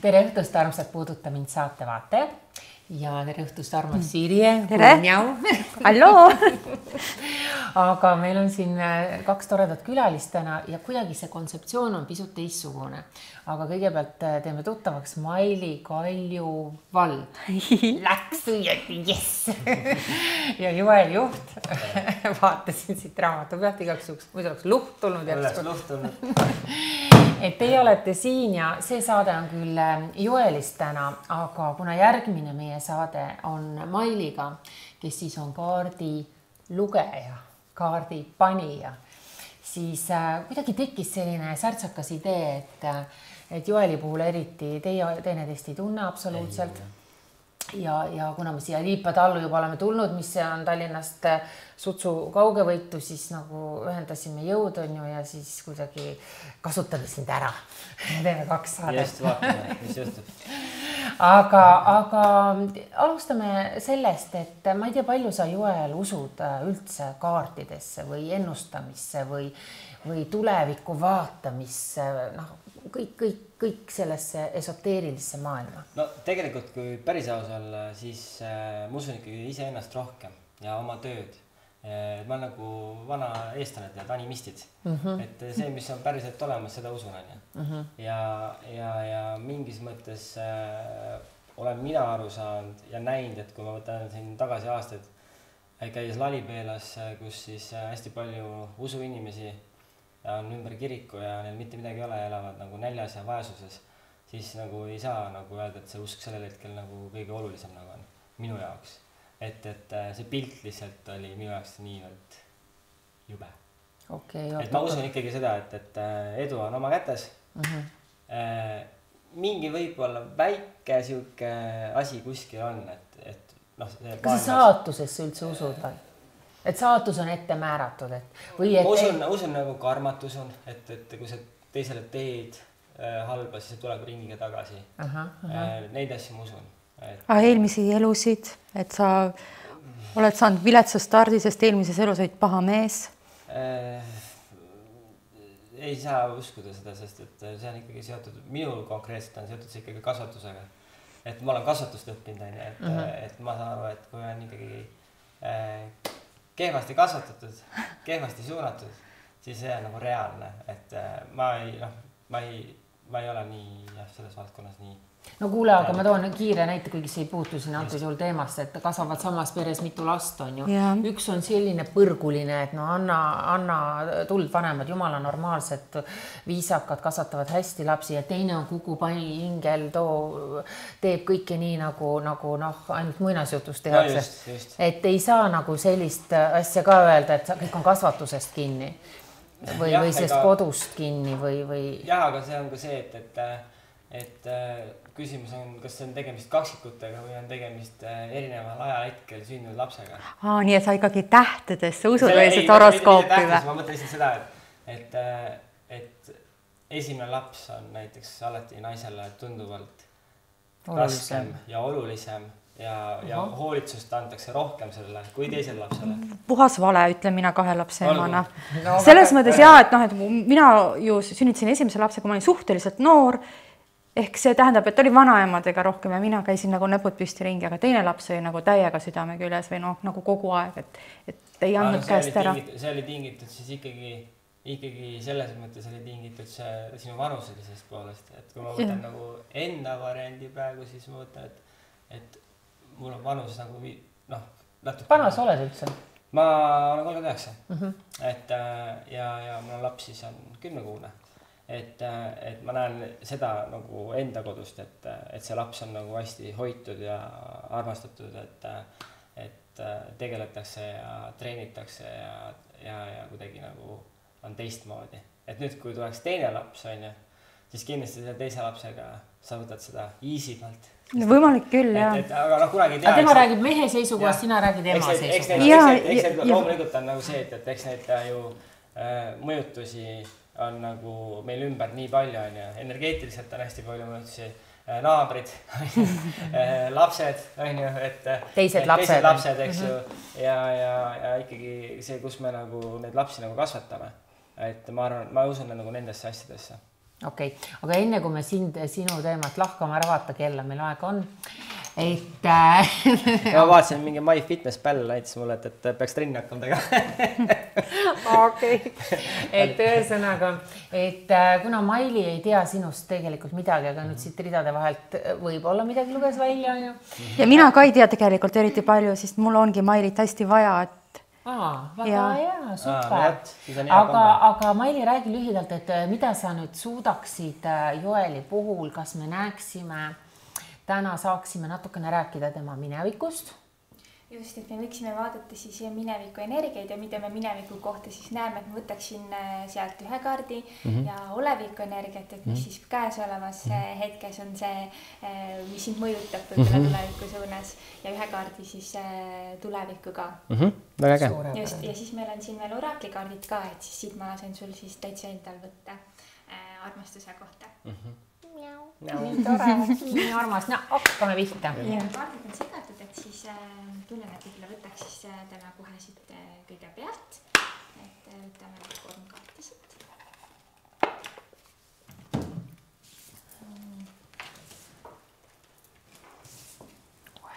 Tere õhtust, armsad Puuduta mind saate vaatajad ja tere õhtust, armas Sirje. Tere! Halloo! Aga meil on siin kaks toredat külalist täna ja kuidagi see kontseptsioon on pisut teistsugune. Aga kõigepealt teeme tuttavaks Maili Kaljuvald. Läks õieti, jess! Ja Joel Juht. Vaatasin siit raamatu pealt igaks juhuks, muidu oleks luht tulnud. Oleks luht tulnud. Et teie olete siin ja see saade on küll Joelist täna, aga kuna järgmine meie saade on Mailiga, kes siis on kaardi lugeja, kaardi panija, siis kuidagi tekkis selline särtsakas idee, et Joeli puhul eriti teie teineteist ei tunne absoluutselt. Ja kuna me siia Liipatallu juba oleme tulnud, mis on Tallinnast sutsu kaugevõitu, siis nagu ühendasime jõud on ju ja siis kuidagi kasutame sind ära. Teeme kaks saadet. Just vaatame, mis juhtub. Aga alustame sellest, et ma ei tea, palju sa Joel usud üldse kaartidesse või ennustamisse või tuleviku vaatamisse, kõik sellesse esoteerilisse maailma. No tegelikult, kui päris aus olla, siis ma usun ikkagi iseennast rohkem ja oma tööd. Ma olen nagu vana eestlane tead, animistid. Et see, mis on päriselt olemas, seda usun on. Ja mingis mõttes olen mina aru saanud ja näinud, et kui ma võtan siin tagasi aastaid, käies Lalipeelas, kus siis hästi palju usuinimesi on ümber kiriku ja neil mitte midagi ei ole, elavad nagu näljas ja vaesuses, siis nagu ei saa nagu öelda, et see usk sellel hetkel nagu kõige olulisem nagu on minu jaoks. Et see pilt lihtsalt oli minu jaoks niivõrd jube. Et ma usun ikkagi seda, et edu on oma kätes. Mingi võib-olla väike siuke asi kuskil on, et kas sa saatusesse üldse usud või? Et saatus on ette määratud, ma usun nagu karmatus on, et kui sa teisele teed halba, siis see tuleb ringiga tagasi. Neid asju ma usun. Eelmisi elusid, et sa oled saanud viletsa stardi, sest eelmises elus olid paha mees? Ei saa uskuda seda, sest et see on ikkagi seotud, minul konkreetselt on seotud see ikkagi kasvatusega. Et ma olen kasvatust õppinud, et ma saan aru, et kui on ikkagi kehvasti kasvatatud, kehvasti suunatud, siis see on nagu reaalne, et ma ei ole nii selles valdkonnas nii. No kuule, aga ma toon kiire näite, kuigi see ei puutu siin antud juhul teemast, et kasvavad samas peres mitu last on ju. Üks on selline põrguline, et anna tuld vanemad, jumala normaalsed, viisakad, kasvatavad hästi lapsi ja teine on kukupai ingel, teeb kõike nii nagu ainult muinasjutust tehakse. Et ei saa nagu sellist asja ka öelda, et kõik on kasvatusest kinni või sellest kodust kinni või... Jah, aga see on ka see, et küsimus on, kas see on tegemist kaksikutega või on tegemist erineval ajahetkel sündinud lapsega. Nii, et sa ikkagi tähtedesse usud või see horoskoopi või? Ma mõtlen lihtsalt seda, et esimene laps on näiteks alati naisele tunduvalt raskem ja olulisem ja hoolitsust antakse rohkem sellele kui teisele lapsele. Puhas vale, ütlen mina 2 lapse emana. Selles mõttes et mina ju sünnitasin esimese lapse, kui ma olin suhteliselt noor. Ehk see tähendab, et oli vanaemadega rohkem ja mina käisin nagu näpud püsti ringi, aga teine laps oli nagu täiega südame küles või nagu kogu aeg, et ei andnud käest ära. See oli tingitud siis ikkagi selles mõttes oli tingitud see sinu vanuselisest poolest, et kui ma võtan nagu enda variandi praegu, siis ma võtan, et mul on vanus nagu natuke... Vana sa oled üldse? Ma olen 39. Ja mul on laps siis on 10-kuune. Et ma näen seda nagu enda kodust, et see laps on nagu hästi hoitud ja armastatud, et tegeletakse ja treenitakse ja kuidagi nagu on teistmoodi. Et nüüd, kui tuleks teine laps, siis kindlasti selle teise lapsega sa võtad seda easy'malt. Võimalik küll, jah. Aga kunagi ei tea. Tema räägib mehe seisukohast, sina räägid ema seisukohast. Eks need loomulikult on nagu see, et eks need ju mõjutusi on nagu meil ümber nii palju on ja energeetiliselt on hästi palju mõjutusi, naabrid, lapsed on ju, et teised lapsed, eks ju, ja ikkagi see, kus me nagu neid lapsi nagu kasvatame, et ma arvan, ma usun nagu nendesse asjadesse. Okei. Aga enne kui me sinu teemat lahkama ära vaata kella, meil aega on. Et ma vaatasin mingi MyFitnessPal näitas mulle, et peaks trenni hakkama tegema. Okei. Et ühesõnaga, et kuna Maili ei tea sinust tegelikult midagi, aga nüüd siit ridade vahelt võib-olla midagi luges välja. Ja mina ka ei tea tegelikult eriti palju, sest mul ongi Mailit hästi vaja, et väga hea, super. Aga Maili, räägi lühidalt, et mida sa nüüd suudaksid Joeli puhul, kas me näeksime, täna saaksime natukene rääkida tema minevikust? Just, et me võiksime vaadata siis mineviku energiaid ja mida me mineviku kohta siis näeme, et ma võtaksin sealt ühe kaardi ja oleviku energiat, et mis siis käesolevas hetkes on see, mis sind mõjutab võib-olla tuleviku suunas ja ühe kaardi siis tulevikku ka. Väga äge. Just, ja siis meil on siin veel oraklikaardid ka, et siis siit ma lasen sul siis täitsa endal võtta armastuse kohta. Nii tore, nii armas. No, hakkame pihta. Kaardid on segatud, et siis tunnen, et võib-olla võtaks siis täna kohe siit kõige pealt. Et võtame 3 kaarti siit.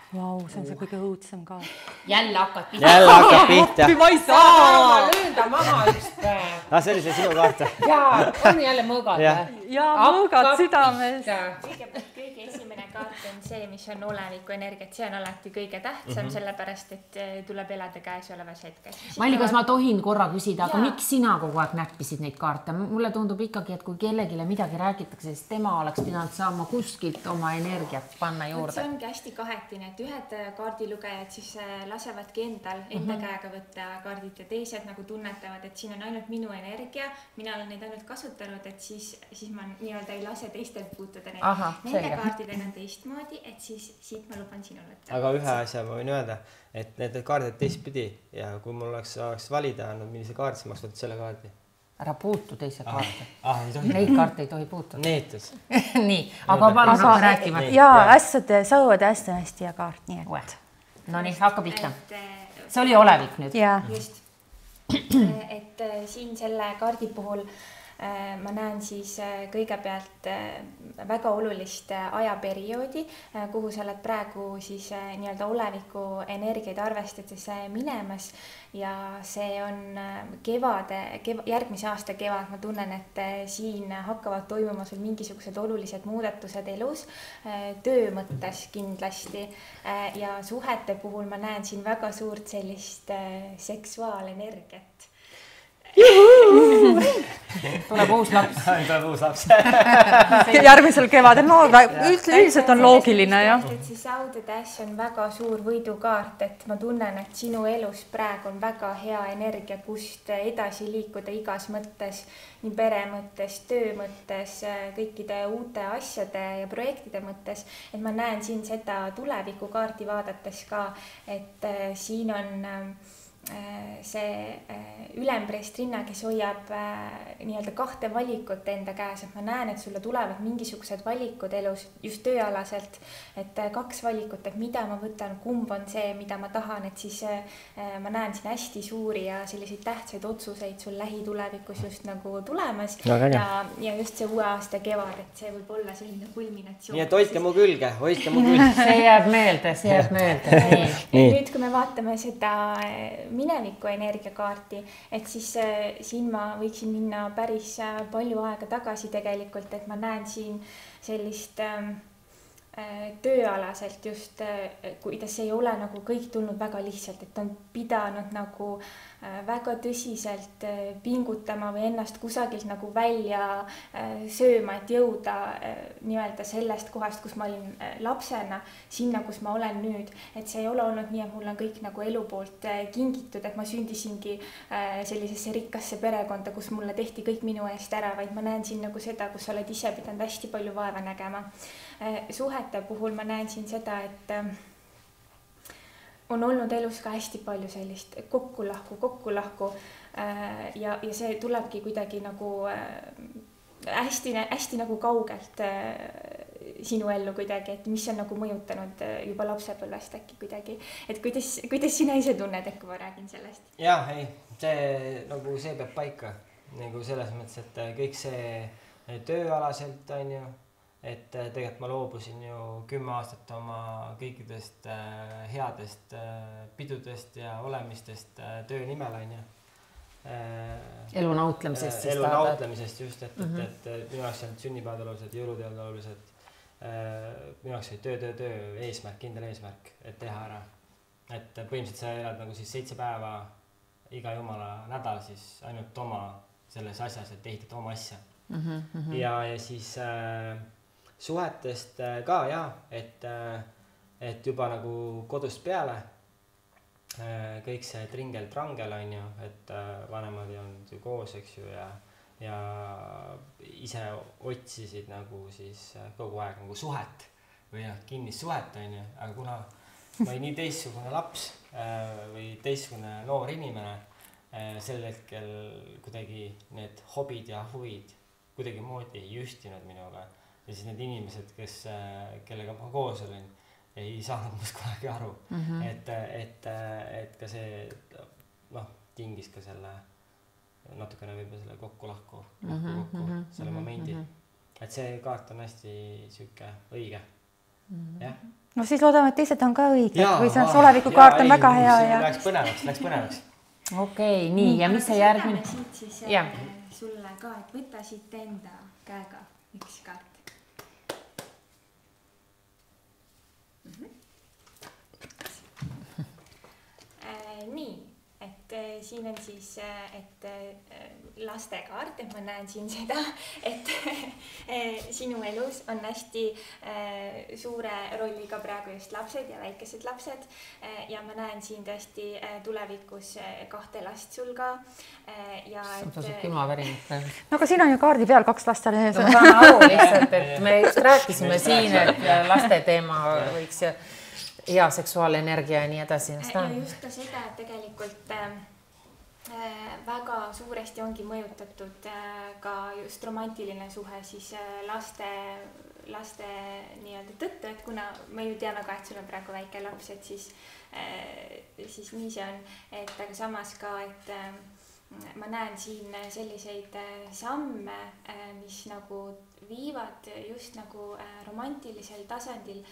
Vau, see on see kõige õudsem ka. Jälle hakkad pihta. Jälle hakkad pihta. Ma ei saa, ma löön ta maha üks päev. See oli see sinu kaart. Jaa, on jälle mõõgad. Ja mõõgad südames. Kõigepealt kõige esimene kaart on see, mis on oleviku energiat. See on alati kõige tähtsam, sellepärast, et tuleb elada käesolevas hetkes. Maili, kas ma tohin korra küsida, aga miks sina kogu aeg näppisid neid kaarte? Mulle tundub ikkagi, et kui kellegile midagi räägitakse, siis tema oleks pidanud saama kuskilt oma energiat panna juurde. See ongi hästi kahetine, et ühed kaardilugejad siis lasevadki endal enda käega võtta kaardid ja teised nagu tunnetavad, et siin on ainult minu energia, mina olen neid ainult kasutanud, et siis ma nii-öelda ei lase teistelt puutuda neid. Nende kaardidega on teistmoodi, et siis siit ma luban sinule. Aga ühe asja ma võin öelda, et need kaardid teistpidi ja kui mul oleks valida andnud, millise kaardi, siis ma oleks võtnud selle kaardi. Ära puutu teise kaarte. Ei tohi. Neid kaarte ei tohi puutuda. Neetus. Nii, aga palun hakka rääkima. Jaa, hästi hästi ja kaart, nii et. No nii, hakka pihta. See oli olevik nüüd. Just. Et siin selle kaardi puhul ma näen siis kõigepealt väga olulist ajaperioodi, kuhu sa oled praegu siis nii-öelda oleviku energiaid arvestades minemas ja see on järgmise aasta kevad. Ma tunnen, et siin hakkavad toimuma sul mingisugused olulised muudatused elus, töö mõttes kindlasti ja suhete puhul ma näen siin väga suurt sellist seksuaalenergiat. Tuleb uus laps. Tuleb uus laps. Järgmisel kevadel, no üldiselt on loogiline, jah. See Saudetäss on väga suur võidukaart, et ma tunnen, et sinu elus praegu on väga hea energia, kust edasi liikuda igas mõttes, nii pere mõttes, töö mõttes, kõikide uute asjade ja projektide mõttes. Et ma näen siin seda tulevikukaarti vaadates ka, et siin on see ülempreestrinna, kes hoiab nii-öelda 2 valikut enda käes, et ma näen, et sulle tulevad mingisugused valikud elus just tööalaselt, et 2 valikut, et mida ma võtan, kumb on see, mida ma tahan, et siis ma näen siin hästi suuri ja selliseid tähtsaid otsuseid sul lähitulevikus just nagu tulemas ja just see uue aasta kevad, et see võib olla selline kulminatsioon. Nii et hoidke mu külge. See jääb meelde. Nüüd, kui me vaatame seda mineviku energiakaarti, et siis siin ma võiksin minna päris palju aega tagasi tegelikult, et ma näen siin sellist tööalaselt just, kuidas ei ole nagu kõik tulnud väga lihtsalt, et on pidanud nagu väga tõsiselt pingutama või ennast kusagilt nagu välja sööma, et jõuda nii-öelda sellest kohast, kus ma olin lapsena, sinna, kus ma olen nüüd. Et see ei ole olnud nii, et mul on kõik nagu elu poolt kingitud, et ma sündisingi sellisesse rikkasse perekonda, kus mulle tehti kõik minu eest ära, vaid ma näen siin nagu seda, kus sa oled ise pidanud hästi palju vaeva nägema. Suhete puhul ma näen siin seda, et on olnud elus ka hästi palju sellist kokku-lahku ja see tulebki kuidagi nagu hästi nagu kaugelt sinu ellu kuidagi, et mis on nagu mõjutanud juba lapsepõlvest äkki kuidagi, et kuidas sina ise tunned, et kui ma räägin sellest? Jah, see peab paika nagu selles mõttes, et kõik see tööalaselt, on ju, et tegelikult ma loobusin ju 10 aastat oma kõikidest headest pidudest ja olemistest töö nimel, on ju. Elu nautlemisest. Elu nautlemisest just, et minu jaoks on sünnipäevad olulised, jõuluteod olulised. Minu jaoks oli töö, eesmärk, kindel eesmärk, et teha ära. Et põhimõtteliselt sa elad nagu siis 7 päeva iga jumala nädal siis ainult oma selles asjas, et ehitad oma asja. Ja siis suhetest ka et juba nagu kodust peale kõik see tringel-trangel on ju, et vanemad on ju koos, eks ju, ja ise otsisid nagu siis kogu aeg nagu suhet või kinnist suhet on ju, aga kuna ma olin nii teistsugune laps või teistsugune noor inimene, sel hetkel kuidagi need hobid ja huvid kuidagi moodi ei ühtinud minuga ja siis need inimesed, kellega ma koos olin, ei saanud must kunagi aru, et ka see tingis ka selle natukene võib-olla selle kokku selle momendi, et see kaart on hästi siuke õige, jah. No siis loodame, et teised on ka õiged või see olevikukaart on väga hea ja läks põnevaks. Okei, nii, ja mis see järgmine? Siis sulle ka, et võta siit enda käega üks kaart. Nii, et siin on siis, et lastekaart, et ma näen siin seda, et sinu elus on hästi suure rolliga praegu just lapsed ja väikesed lapsed ja ma näen siin tõesti tulevikus 2 last sul ka ja et... Tasub külmavärinit. No aga siin on ju kaardi peal 2 last all. Ma saan aru lihtsalt, et me just rääkisime siin, et laste teema võiks hea seksuaalenergia ja nii edasi. Ja just ka seda, et tegelikult väga suuresti ongi mõjutatud ka just romantiline suhe siis laste nii-öelda tõttu, et kuna me ju teame ka, et sul on praegu väike laps, et siis nii see on, et aga samas ka, et ma näen siin selliseid samme, mis nagu viivad just nagu romantilisel tasandil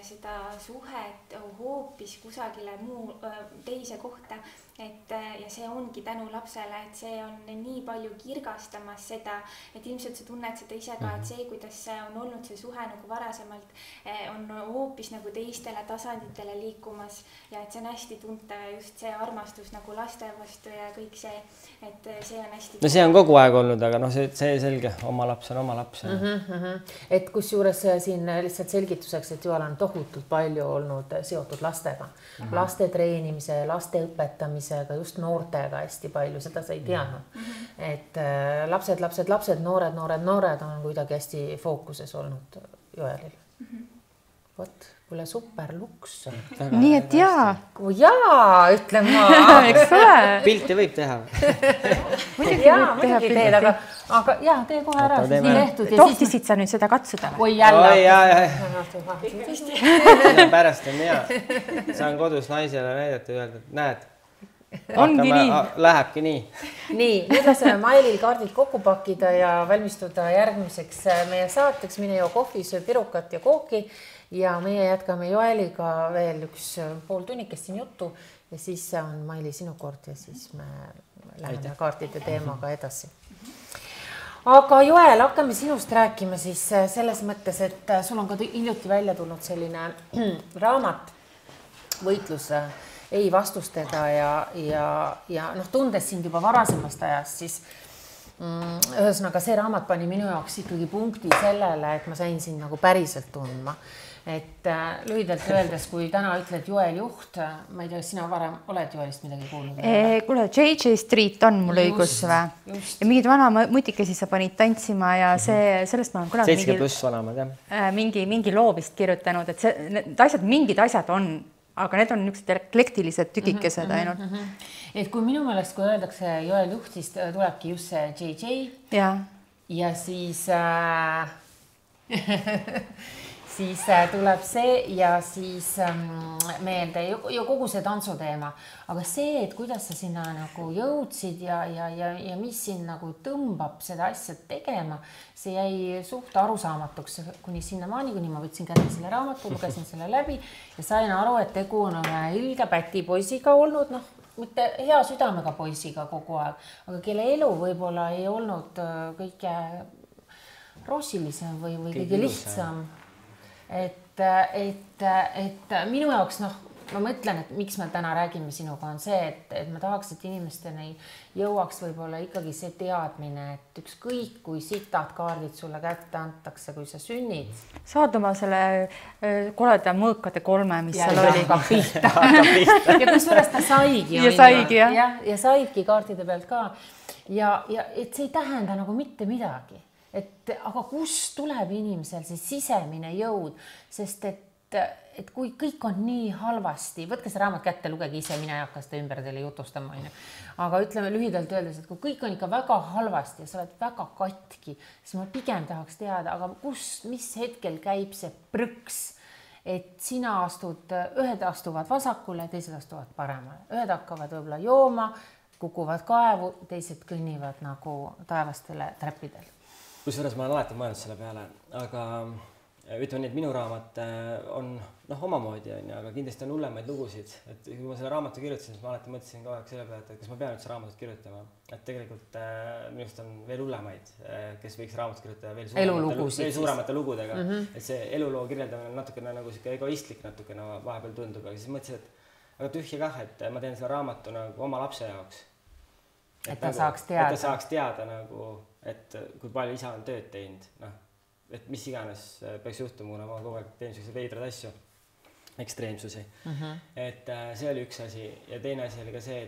seda suhet hoopis kusagile teise kohta, ja see ongi tänu lapsele, et see on nii palju kirgastamas seda, et ilmselt sa tunned seda ise ka, et see, kuidas on olnud see suhe nagu varasemalt, on hoopis nagu teistele tasanditele liikumas ja et see on hästi tuntav just see armastus nagu laste vastu ja kõik see, et see on hästi... No see on kogu aeg olnud, aga see selge, oma laps on oma laps. Et kus juures siin lihtsalt selgituseks, et Joel on tohutult palju olnud seotud lastega, laste treenimise, laste õpetamisega, just noortega hästi palju, seda sa ei teadnud. Et lapsed, noored on kuidagi hästi fookuses olnud Joelil. Vot, kuule super luks. Nii et jaa. Ütlen ma. Eks ole. Pilti võib teha. Muidugi teed, aga tee kohe ära. Tohtisid sa nüüd seda katsuda? Oi, jälle. Pärast on hea. Saan kodus naisele näidata ja öelda, et näed. Ongi nii. Lähebki nii. Nii, nüüd laseme Mailil kaardid kokku pakkida ja valmistuda järgmiseks meie saateks. Mine joo kohvi, söö pirukat ja kooki ja meie jätkame Joeliga veel üks pool tunnikest siin juttu ja siis on Maili sinu kord ja siis me läheme kaartide teemaga edasi. Aga Joel, hakkame sinust rääkima siis selles mõttes, et sul on ka hiljuti välja tulnud selline raamat võitlus ei vastustega ja tundes sind juba varasemast ajast, siis ühesõnaga see raamat pani minu jaoks ikkagi punkti sellele, et ma sain sind nagu päriselt tundma. Et lühidalt öeldes, kui täna ütled Joel Juht, ma ei tea, sina varem oled Joelist midagi kuulnud? Kuule, JJ Street on mul õigus või? Ja mingid vana mutikesi sa panid tantsima ja sellest ma olen kunagi 7+ vanamad, jah. Mingi loo vist kirjutanud, et mingid asjad on, aga need on niisugused eklektilised tükikesed ainult. Et kui minu meelest, kui öeldakse Joel Juht, siis tulebki just see JJ ja siis siis tuleb see ja siis meelde ju kogu see tantsuteema, aga see, et kuidas sa sinna nagu jõudsid ja mis sind nagu tõmbab seda asja tegema, see jäi suht arusaamatuks kuni sinnamaani, kuni ma võtsin kätte selle raamatu, lugesin selle läbi ja sain aru, et tegu on ilge pätipoisiga olnud, noh, mitte hea südamega poisiga kogu aeg, aga kelle elu võib-olla ei olnud kõige roosilisem või kõige lihtsam. Et minu jaoks, noh, ma mõtlen, et miks me täna räägime sinuga on see, et ma tahaks, et inimesteni jõuaks võib-olla ikkagi see teadmine, et ükskõik kui sitad kaardid sulle kätte antakse, kui sa sünnid. Saad oma selle koleda mõõkade 3, mis seal oli. Ja kusjuures ta saigi. Ja saidki kaartide pealt ka. Ja et see ei tähenda nagu mitte midagi. Aga kust tuleb inimesel see sisemine jõud, sest et kui kõik on nii halvasti, võtke see raamat kätte, lugege ise, mina ei hakka seda ümber teile jutustama, aga ütleme lühidalt öeldes, et kui kõik on ikka väga halvasti ja sa oled väga katki, siis ma pigem tahaks teada, aga mis hetkel käib see prõks, et sina ühed astuvad vasakule, teised astuvad paremale, ühed hakkavad võib-olla jooma, kukuvad kaevu, teised kõnnivad nagu taevastele trepidel. Kusjuures ma olen alati mõelnud selle peale, aga ütleme nii, et minu raamat on omamoodi, aga kindlasti on hullemaid lugusid. Et kui ma selle raamatu kirjutasin, siis ma alati mõtlesin kogu aeg selle peale, et kas ma pean üldse raamatut kirjutama. Et tegelikult minust on veel hullemaid, kes võiks raamatut kirjutada veel suuremate lugudega. Et see eluloo kirjeldamine on natukene nagu egoistlik natukene vahepeal tundub, aga siis mõtlesin, et aga tühja kah, et ma teen selle raamatu nagu oma lapse jaoks. Et ta saaks teada. Et ta saaks teada nagu, et kui palju isa on tööd teinud, et mis iganes peaks juhtuma, kuna ma kogu aeg teen selliseid veidrad asju, ekstreemsusi. Et see oli üks asi ja teine asi oli ka see,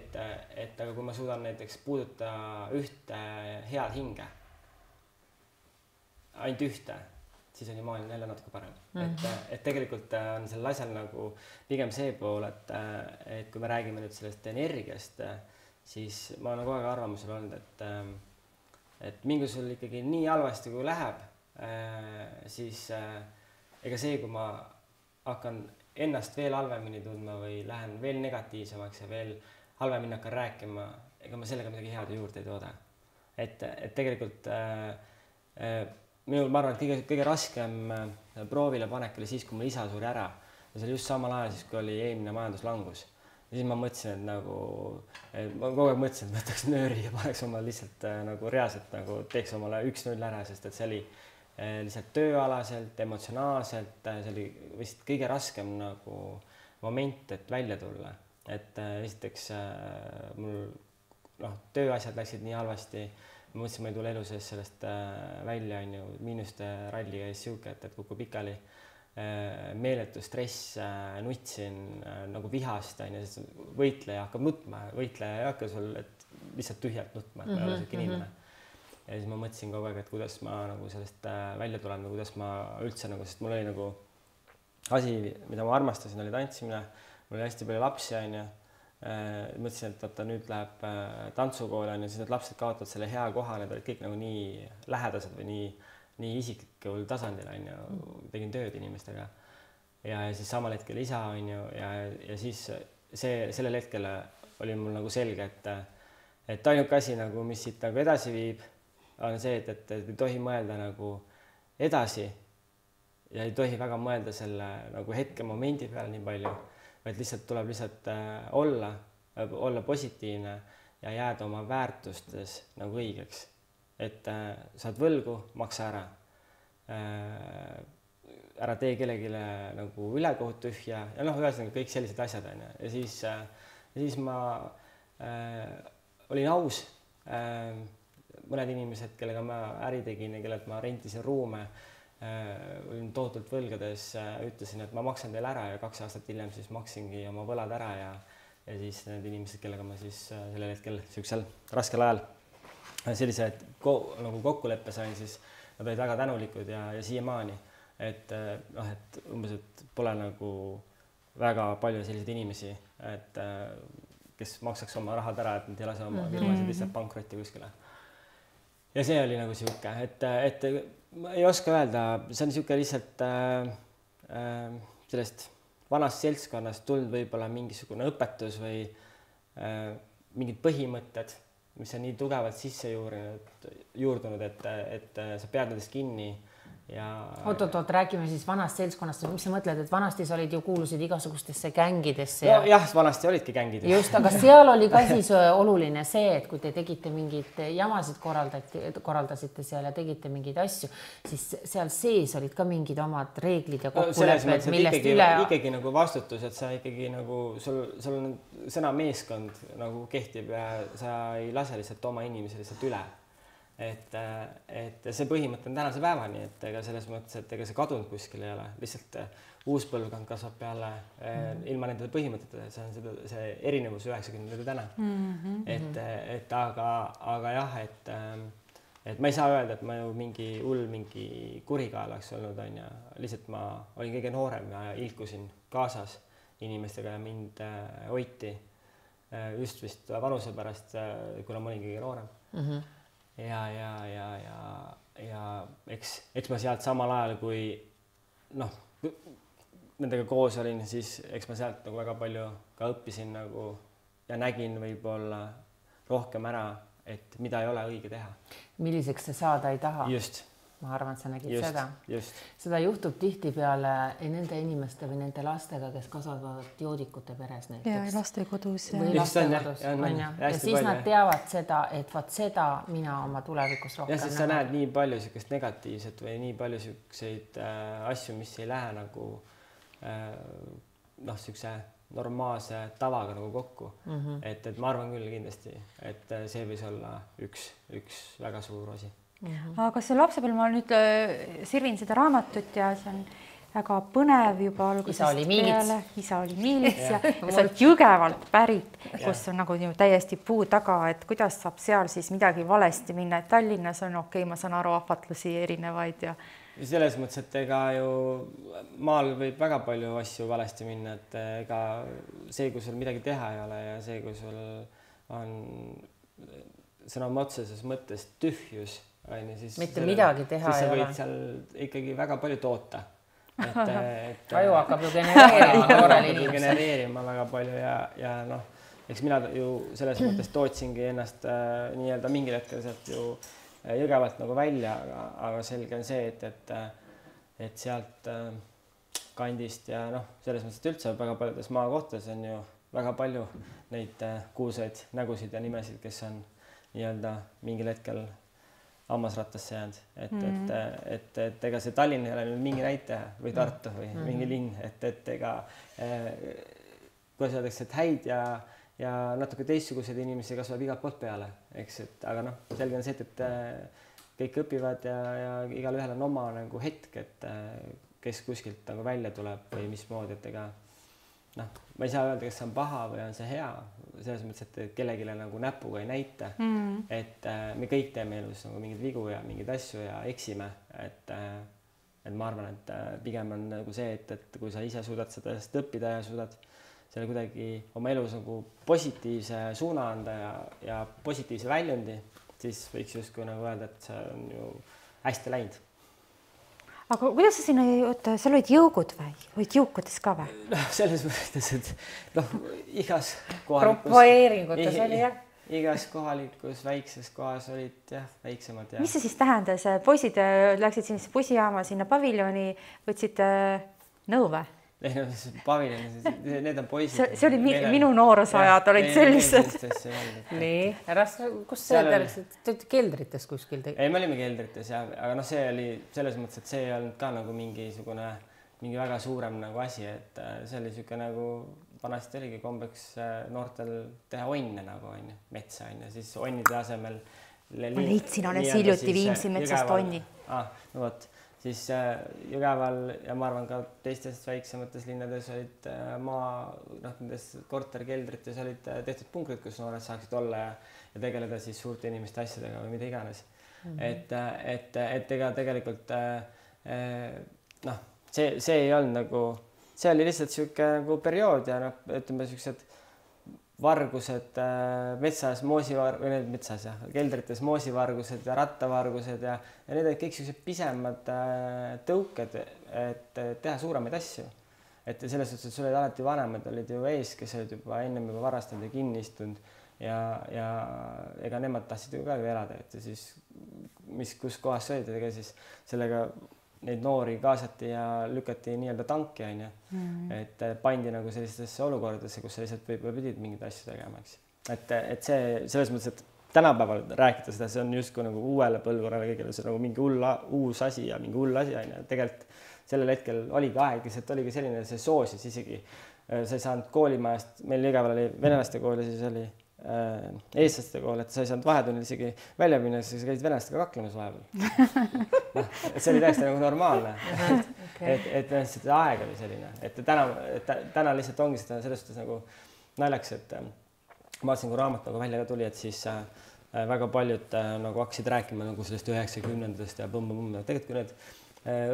et aga kui ma suudan näiteks puuduta ühte head hinge, ainult ühte, siis on ju maailm jälle natuke parem. Et tegelikult on sellel asjal nagu pigem see pool, et kui me räägime nüüd sellest energiast, siis ma olen kogu aeg arvamusel olnud, et mingi sul ikkagi nii halvasti kui läheb, siis ega see, kui ma hakkan ennast veel halvemini tundma või lähen veel negatiivsemaks ja veel halvemini hakkan rääkima, ega ma sellega midagi head juurde ei tooda. Et tegelikult minul, ma arvan, et kõige raskem proovile panek oli siis, kui mul isa suri ära ja see oli just samal ajal siis, kui oli eelmine majanduslangus. Ja siis ma mõtlesin, et ma kogu aeg mõtlesin, et võtaks nööri ja paneks omale lihtsalt nagu reaalselt nagu teeks omale 1-0 ära, sest et see oli lihtsalt tööalaselt, emotsionaalselt, see oli vist kõige raskem nagu moment, et välja tulla. Et esiteks mul tööasjad läksid nii halvasti, ma mõtlesin, ma ei tule elu sees sellest välja, miinuste ralli käis siuke, et kukub pikali. Meeletu stress, nutsin nagu vihast, võitleja hakkab nutma, võitleja ei hakka sul lihtsalt tühjalt nutma, et ma ei ole selline inimene. Ja siis ma mõtlesin kogu aeg, et kuidas ma nagu sellest välja tulen või kuidas ma üldse nagu, sest mul oli nagu asi, mida ma armastasin, oli tantsimine, mul oli hästi palju lapsi, mõtlesin, et nüüd läheb tantsukool, siis need lapsed kaotavad selle hea koha, need olid kõik nagu nii lähedased või nii isiklikul tasandil, tegin tööd inimestega ja siis samal hetkel isa, ja siis sellel hetkel oli mul nagu selge, et ainuke asi, nagu, mis siit nagu edasi viib, on see, et ei tohi mõelda nagu edasi ja ei tohi väga mõelda selle nagu hetke momendi peale nii palju, vaid lihtsalt tuleb lihtsalt olla positiivne ja jääda oma väärtustes nagu õigeks. Et saad võlgu, maksa ära. Ära tee kellegile nagu ülekohut tühja ja ühesõnaga kõik sellised asjad. Ja siis ma olin aus. Mõned inimesed, kellega ma äri tegin ja kellelt ma rentisin ruume, olin tohutult võlgades, ütlesin, et ma maksan teile ära ja 2 aastat hiljem siis maksingi oma võlad ära ja siis need inimesed, kellega ma siis sellel hetkel sellisel raskel ajal sellise nagu kokkuleppe sain, siis nad olid väga tänulikud ja siiamaani, et umbes, et pole nagu väga palju selliseid inimesi, et kes maksaks oma rahad ära, et nad ei lase oma firmasid lihtsalt pankrotti kuskile. Ja see oli nagu siuke, et ma ei oska öelda, see on siuke lihtsalt sellest vanast seltskonnast tulnud võib-olla mingisugune õpetus või mingid põhimõtted, mis on nii tugevalt sisse juurdunud, et sa pead nendest kinni ja oot, räägime siis vanast seltskonnast, mis sa mõtled, et vanasti sa olid ju kuulusid igasugustesse gängidesse no, jah, vanasti olidki gängid. Just, aga seal oli ka siis oluline see, et kui te tegite mingeid jamasid korraldasite seal ja tegite mingeid asju, siis seal sees olid ka mingid omad reeglid ja kokkulepped, millest üle ikkagi nagu vastutus, et sa ikkagi nagu sul on sõna meeskond nagu kehtib ja sa ei lase lihtsalt oma inimesi lihtsalt üle. Et see põhimõte on tänase päevani, et ega selles mõttes, et ega see kadunud kuskil ei ole, lihtsalt uus põlvkond kasvab peale ilma nende põhimõtetele, see on see erinevus 90 täna. Et aga jah, et ma ei saa öelda, et ma ju mingi kurikael oleks olnud, on ja lihtsalt ma olin kõige noorem ja ilkusin kaasas inimestega ja mind hoiti just vist vanuse pärast, kuna ma olin kõige noorem. Ja eks ma sealt samal ajal, kui nendega koos olin, siis eks ma sealt nagu väga palju ka õppisin nagu ja nägin võib-olla rohkem ära, et mida ei ole õige teha. Milliseks sa saada ei taha. Just. Ma arvan, et sa nägid just, seda. Just. Seda juhtub tihtipeale nende inimeste või nende lastega, kes kasvavad joodikute peres näiteks. Ja lastekodus. Või lastekodus, on ja. Ja siis nad teavad seda, et vaat seda mina oma tulevikus rohkem. Ja siis sa näed nii palju sükest negatiivset või nii palju sükseid asju, mis ei lähe nagu sükse normaalse tavaga nagu kokku. Et ma arvan küll kindlasti, et see võis olla üks väga suur osi. Aga see lapsepõlv, ma nüüd sirvin seda raamatut ja see on väga põnev juba algusest peale. Isa oli miilits ja sa oled Jõgevalt pärit, kus on nagu täiesti puu taga, et kuidas saab seal siis midagi valesti minna, et Tallinnas on okei, ma saan aru ahvatlusi erinevaid ja selles mõttes, et ega ju maal võib väga palju asju valesti minna, et ega see, kui sul midagi teha ei ole ja see, kui sul on sõna otseses mõttes tühjus, siis mitte midagi teha siis sa võid seal ikkagi väga palju toota. Aju hakkab ju genereerima väga palju ja eks mina ju selles mõttes tootsingi ennast nii-öelda mingil hetkel sealt ju Jõgevalt nagu välja, aga selge on see, et sealt kandist ja selles mõttes, et üldse väga paljudes maakohtades on ju väga palju neid kuulsaid nägusid ja nimesid, kes on nii-öelda mingil hetkel hammasrattasse jäänud, et ega see Tallinn ei ole nüüd mingi näitaja või Tartu või mingi linn, et ega kuidas öeldakse, et häid ja natuke teistsuguseid inimesi kasvab igalt poolt peale, eks, et aga selge on see, et kõik õpivad ja igal ühel on oma nagu hetk, et kes kuskilt nagu välja tuleb või mismoodi, et ega ma ei saa öelda, kas see on paha või on see hea, selles mõttes, et kellegile nagu näpuga ei näita, et me kõik teeme elus nagu mingeid vigu ja mingeid asju ja eksime, et ma arvan, et pigem on nagu see, et kui sa ise suudad sellest õppida ja suudad selle kuidagi oma elus nagu positiivse suuna anda ja positiivse väljundi, siis võiks justkui nagu öelda, et see on ju hästi läinud. Aga kuidas sa sinna, seal olid jõugud või? Olid jõukudes ka või? Selles mõttes, et igas propoeeringutes oli jah? Igas kohalikus väikses kohas olid jah väiksemad. Mis see siis tähendas? Poisid läksid sinna bussijaama, sinna paviljoni, võtsid nõu või? Paviljoni, need on poisid. See oli minu noorusajad, olid sellised. Nii, kus see läksid? Te olite keldrites kuskil? Ei, me olime keldrites, aga see oli selles mõttes, et see ei olnud ka nagu mingi väga suurem nagu asi, et see oli siuke nagu vanasti oligi kombeks noortel teha onne nagu on ju, metsa on ju, siis onnide asemel. Ma leidsin, olen hiljuti Viimsi metsast onni. No võt. Siis Jõgeval ja ma arvan ka teistes väiksemates linnades olid nendes korterkeldrites olid tehtud punkrid, kus noored saaksid olla ja tegeleda siis suurte inimeste asjadega või mida iganes. Et ega tegelikult see ei olnud nagu, see oli lihtsalt siuke nagu periood ja ütleme siuksed vargused metsas, metsas jah, keldrites moosivargused ja rattavargused ja need olid kõik sellised pisemad tõuked, et teha suuremaid asju. Et selles suhtes, et sul olid alati vanemad, olid ju ees, kes olid juba ennem juba varastanud ja kinni istunud ja ega nemad tahtsid ju ka elada, et siis kus kohas sa olid, ega siis sellega neid noori kaasati ja lükati nii-öelda tanki, onju. Et pandi nagu sellistesse olukordadesse, kus sa lihtsalt võib-olla pidid mingeid asju tegema, eks. Et see selles mõttes, et tänapäeval rääkida seda, see on justkui nagu uuele põlvkonnale kõigile, see nagu mingi uus asi ja mingi hull asi, onju. Tegelikult sellel hetkel oligi aeg, lihtsalt oligi selline, see soosis isegi. Sa ei saanud koolimajast, meil iga päeval oli venelaste kool ja siis oli eestlaste kool, et sa ei saanud vahetunnil isegi välja minna, siis sa käisid venelastega kaklemas vahepeal. See oli täiesti nagu normaalne. Et see aeg oli selline, et täna lihtsalt ongi seda selles suhtes nagu naljaks, et ma vaatasin, kui raamat nagu välja tuli, et siis väga paljud nagu hakkasid rääkima nagu sellest 90-ndast ja põmm-põmm. Tegelikult kui need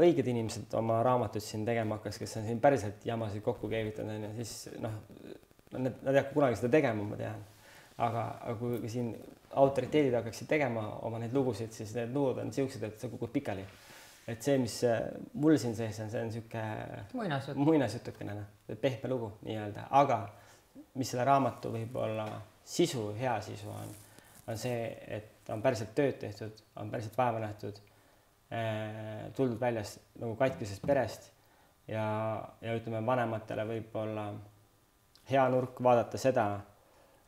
õiged inimesed oma raamatuid siin tegema hakkas, kes on siin päriselt jamasid kokku keevitanud, siis nad ei hakka kunagi seda tegema, ma tean. Aga kui siin autoriteedid hakkaksid tegema oma neid lugusid, siis need lugud on siuksed, et see kukud pikali. Et see, mis mul siin sees on, see on siuke muinasjutukene, pehme lugu nii-öelda. Aga mis selle raamatu võib-olla sisu, hea sisu on see, et on päriselt tööd tehtud, on päriselt vaeva nähtud, tuldud väljas nagu katkisest perest ja ütleme vanematele võib-olla hea nurk vaadata seda,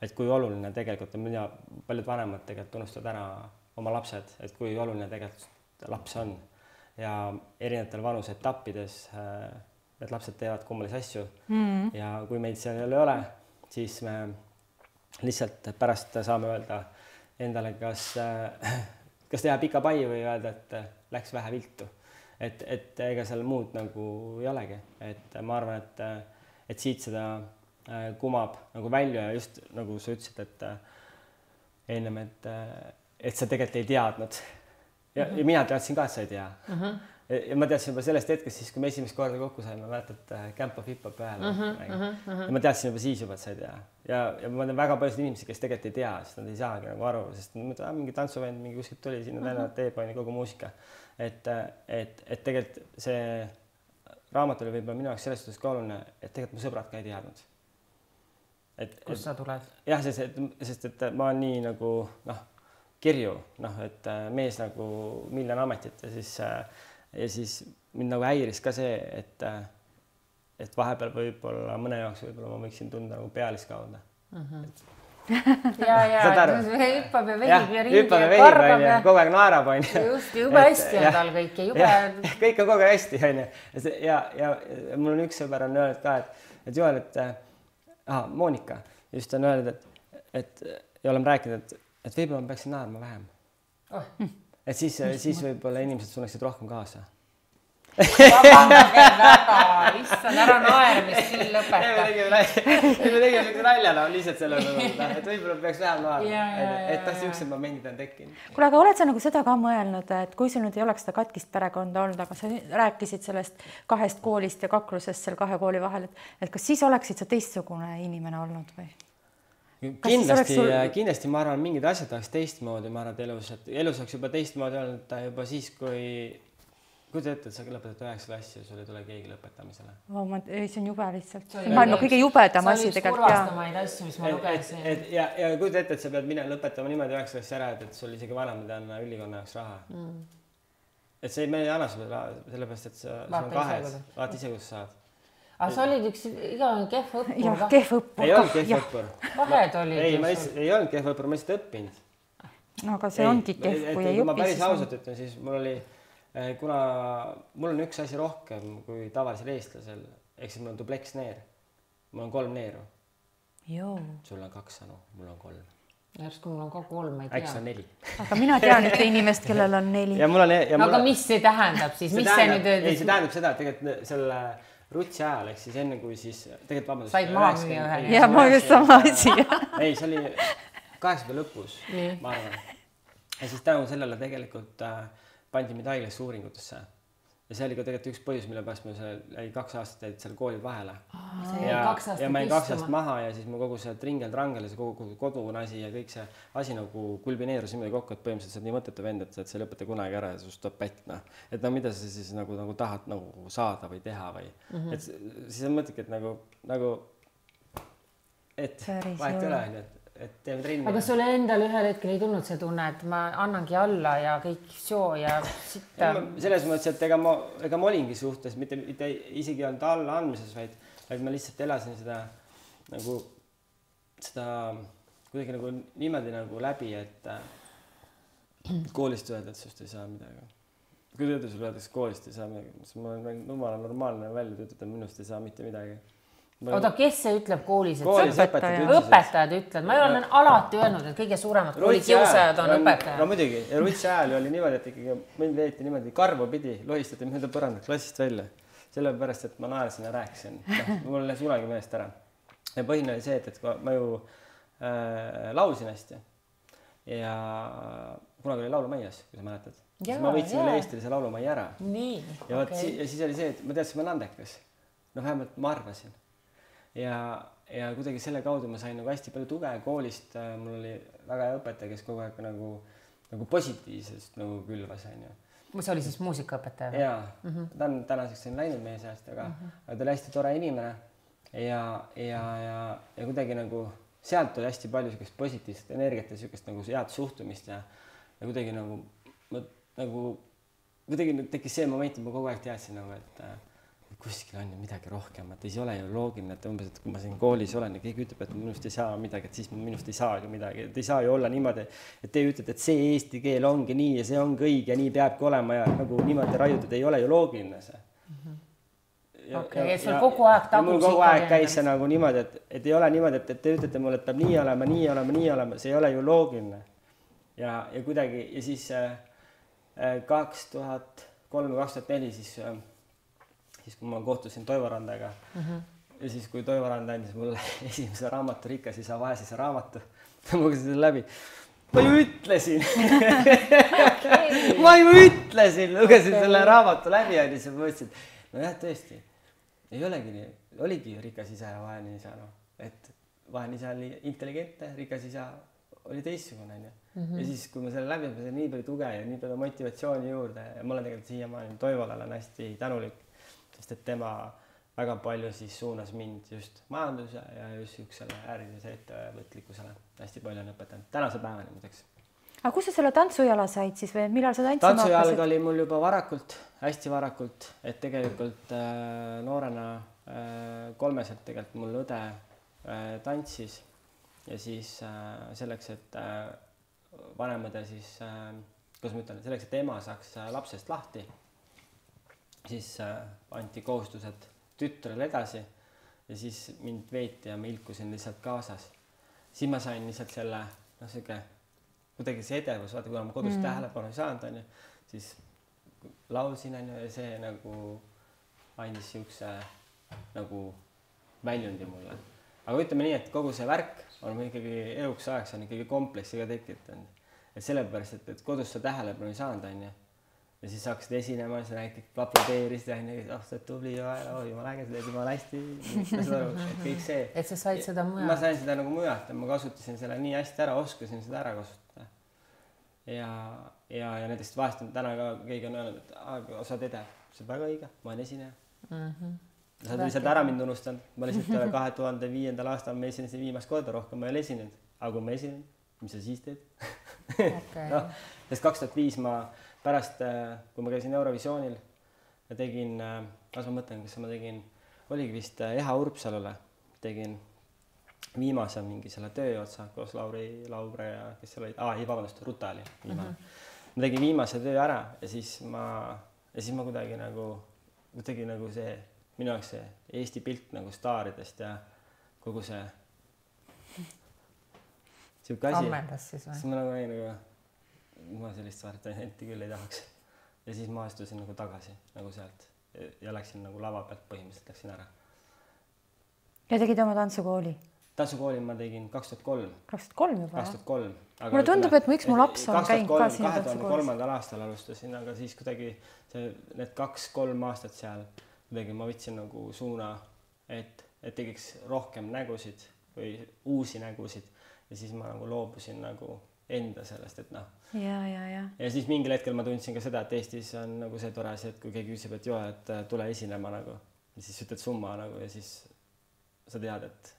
et kui oluline tegelikult, mida paljud vanemad tegelikult unustavad ära oma lapsed, et kui oluline tegelikult laps on ja erinevatel vanuse etappides need lapsed teevad kummalisi asju ja kui meid seal ei ole, siis me lihtsalt pärast saame öelda endale, kas teha pika pai või öelda, et läks vähe viltu. Et ega seal muud nagu ei olegi. Et ma arvan, et siit seda kumab nagu välja ja just nagu sa ütlesid, et ennem, et sa tegelikult ei teadnud. Ja mina teadsin ka, et sa ei tea. Ja ma teadsin juba sellest hetkest siis, kui me esimest korda kokku saime, mäletad Kämpa Fippa peale. Ja ma teadsin juba siis juba, et sa ei tea. Ja ma tean väga paljud inimesi, kes tegelikult ei tea, sest nad ei saagi nagu aru, sest mingi tantsuvend, mingi kuskilt tuli sinna tänavat teepaini kogu muusika. Et tegelikult see raamat oli võib-olla minu jaoks selles suhtes ka oluline, et tegelikult mu sõbrad ka ei teadnud. Kust sa tuled? Jah, sest et ma olen nii nagu kirju, et mees nagu miljon ametit ja siis mind nagu häiris ka see, et vahepeal võib-olla mõne jaoks võib-olla ma võiksin tunda nagu pealiskauda. Ja hüppab ja vehib ja ringi ja karbab ja kogu aeg naerab, on. Just, jube hästi on tal kõik ja jube. Kõik on kogu aeg hästi, on. Ja mul on üks sõber on öelnud ka, et Joel, Monika just on öelnud, ja oleme rääkinud, et võib-olla ma peaksin naerma vähem. Et siis võib-olla inimesed sunnaksid rohkem kaasa. Vabandage väga, issand, ära naermist siin lõpeta. Me tegime üks naljana lihtsalt selle, et võib-olla peaks vähem naerma, et siuksed momendid on tekkinud. Kuule, aga oled sa nagu seda ka mõelnud, et kui sul nüüd ei oleks seda katkist perekonda olnud, aga sa rääkisid sellest 2 koolist ja kaklusest seal 2 kooli vahel, et kas siis oleksid sa teistsugune inimene olnud või? Kindlasti ma arvan, mingid asjad oleks teistmoodi, ma arvan, et elus oleks juba teistmoodi olnud juba siis, kui te ette, et sa lõpetad 9 klassi ja sul ei tule keegi lõpetamisele. See on jube lihtsalt. Maailma kõige jubedam asi tegelikult. See oli üks kurvastamaid asju, mis ma lugesin. Ja kui te ette, et sa pead minna lõpetama niimoodi 9 klassi ära, et sul isegi vanemad on ülikonna jaoks raha. Et see ei anna sulle raha, sellepärast, et sa on 2, vaata ise, kus saad. Aga sa olid üks igavene kehv õppur. Jah, kehv õppur. Ei olnud kehv õppur. Vahed olid. Ei olnud kehv õppur, ma lihtsalt õppinud. No aga see ongi kehv, kui ei õpi. Ma päris ausalt ütlen, siis mul oli, kuna mul on üks asi rohkem kui tavalisel eestlasel, ehk siis mul on dubleksneer. Mul on 3 neeru. Sul on 2 sanu, mul on 3. Järsku mul on ka 3, ma ei tea. Äkki on 4. Aga mina tean ühte inimest, kellel on 4. Aga mis see tähendab siis? Mis see nüüd ei, see tähendab seda, et tegelikult selle rutsi ajal, ehk siis enne kui siis tegelikult vabandust. Said maha müüa ühe. Ja ma just sama asi. Ei, see oli 80 lõpus, ma arvan. Ja siis tänu sellele tegelikult pandi mind haiglasse uuringutesse. ja see oli ka tegelikult üks põhjus, mille pärast ma jäi 2 aastat jäid seal koolid vahele. Ja ma jäin 2 aastat maha ja siis mu kogu see tringel-trangel ja see kogu kodune asi ja kõik see asi nagu kulmineerus niimoodi kokku, et põhimõtteliselt sa oled nii mõttetu vend, et sa ei lõpeta kunagi ära ja sust tuleb pätt, noh. Et no mida sa siis nagu tahad nagu saada või teha või. Et siis on mõtledki, et nagu et vahet ei ole, et teeme trenni. Aga sulle endal ühel hetkel ei tulnud see tunne, et ma annangi alla ja kõik soo ja sitta? Selles mõttes, et ega ma olingi suhtes, mitte isegi olnud alla andmises, vaid ma lihtsalt elasin seda kuidagi nagu niimoodi nagu läbi, et koolist öelda, et sust ei saa midagi. Kui tööda sulle öeldakse koolist ei saa midagi, siis ma olen normaalne välja töötada, minust ei saa mitte midagi. Oota, kes see ütleb koolis? Õpetajad ütlevad. Ma olen alati öelnud, et kõige suuremad koolikiusajad on õpetajad. No muidugi, ja rutsi ajal oli niimoodi, et ikkagi mind veeti niimoodi karvu pidi, lohistati mööda põrandat klassist välja. Sellepärast, et ma naersin ja rääkisin. Mul läks unagi meelest ära. Ja põhine oli see, et ma ju laulsin hästi. Ja kunagi oli laulumaias, kui sa mäletad. Ma võitsin üle Eestilise laulumai ära. Ja siis oli see, et ma teadsin, ma olen andekas. No vähemalt ma arvasin. Ja kuidagi selle kaudu ma sain nagu hästi palju tuge koolist. Mul oli väga hea õpetaja, kes kogu aeg nagu positiivsest nagu külvas. See oli siis muusikaõpetaja? Jaa, ta on tänaseks läinud meie seast, aga ta oli hästi tore inimene ja kuidagi nagu sealt oli hästi palju sükest positiivset energiat ja sükest nagu head suhtumist ja kuidagi nagu kuidagi tekkis see moment, et ma kogu aeg teadsin nagu, et kuskil on ju midagi rohkem, et ei ole ju loogiline, et umbes, et kui ma siin koolis olen ja keegi ütleb, et minust ei saa midagi, et siis minust ei saagi midagi, et ei saa ju olla niimoodi, et te ütlete, et see eesti keel ongi nii ja see ongi õige ja nii peabki olema ja nagu niimoodi raiutud, ei ole ju loogiline see. Okei, et sul kogu aeg tagus mul kogu aeg käis see nagu niimoodi, et ei ole niimoodi, et te ütlete mulle, et peab nii olema, see ei ole ju loogiline. Ja kuidagi, ja siis 2003-2004 siis kui ma kohtusin Toivo Randaga ja siis kui Toivo Randa andis mulle esimese raamatu Rikas isa, vaes isa raamatu, ma lugesin selle läbi. Ma ju ütlesin, lugesin selle raamatu läbi ja siis mõtlesin, no jah, tõesti, ei olegi nii, oligi Rikas isa ja vaene isa, et vaene isa oli intelligentne, Rikas isa oli teistsugune. Ja siis, kui ma selle läbi, ma sain nii palju tuge ja nii palju motivatsiooni juurde ja ma olen tegelikult siiamaani Toivole olen hästi tänulik, sest et tema väga palju siis suunas mind just majanduse ja just ükssele ärilise ettevõtlikkusele. Hästi palju on õpetanud. Tänase päevani muideks. Aga kus sa selle tantsujala said siis või millal sa tantsima hakkasid? Tantsujalg oli mul juba varakult, hästi varakult, et tegelikult noorena 3 tegelikult mul õde tantsis ja siis selleks, et vanemõde siis, kuidas ma ütlen, selleks, et ema saaks lapsest lahti, siis anti kohustused tütrele edasi ja siis mind veeti ja ma ilkusin lihtsalt kaasas. Siis ma sain lihtsalt selle, kuidagi see edevus, vaata, kuna ma kodus tähelepanu ei saanud, siis laulsin ja see nagu andis siukse nagu väljundi mulle. Aga ütleme nii, et kogu see värk on ikkagi eluks ajaks on ikkagi kompleksiga tekitanud. Et sellepärast, et kodus sa tähelepanu ei saanud, ja siis hakkasid esinema, sa näiteks aplodeerisid, sa tubli ja jumala äge, sa teed jumala hästi, kõik see. Et sa said seda mujalt? Ma sain seda nagu mujalt ja ma kasutasin selle nii hästi ära, oskasin seda ära kasutada. Ja näiteks vahest on täna ka keegi on öelnud, et sa oled edev, see on väga õige, ma olen esineja. Sa oled lihtsalt ära mind unustanud. Ma lihtsalt 2005. aastal ma esinesin viimast korda, rohkem ma ei ole esinenud. Aga kui ma esinen, mis sa siis teed? Sest 2005 ma pärast, kui ma käisin Eurovisioonil ja tegin, kas ma mõtlen, kas ma tegin, oligi vist Eha Urpsalule, tegin viimase mingi selle tööotsa koos Laure ja kes seal oli, Ruta oli viimane. Ma tegin viimase töö ära ja siis ma kuidagi nagu see minu jaoks see Eesti pilt nagu staaridest ja kogu see siuke asi. Ammendas siis või? Siis ma nagu ma sellist varianti küll ei tahaks. Ja siis ma astusin nagu tagasi nagu sealt ja läksin nagu lava pealt põhimõtteliselt läksin ära. Ja tegid oma tantsukooli? tantsukooli ma tegin 2003. 2003 juba, 2003. Mulle tundub, et miks mu laps on käinud ka siin 2003. aastal alustasin, aga siis kuidagi need 2-3 aastat seal kuidagi ma võtsin nagu suuna, et tegiks rohkem nägusid või uusi nägusid ja siis ma nagu loobusin nagu enda sellest, et noh. Ja siis mingil hetkel ma tundsin ka seda, et Eestis on nagu see tore asi, et kui keegi küsib, et joo, et tule esinema nagu ja siis ütled summa nagu ja siis sa tead, et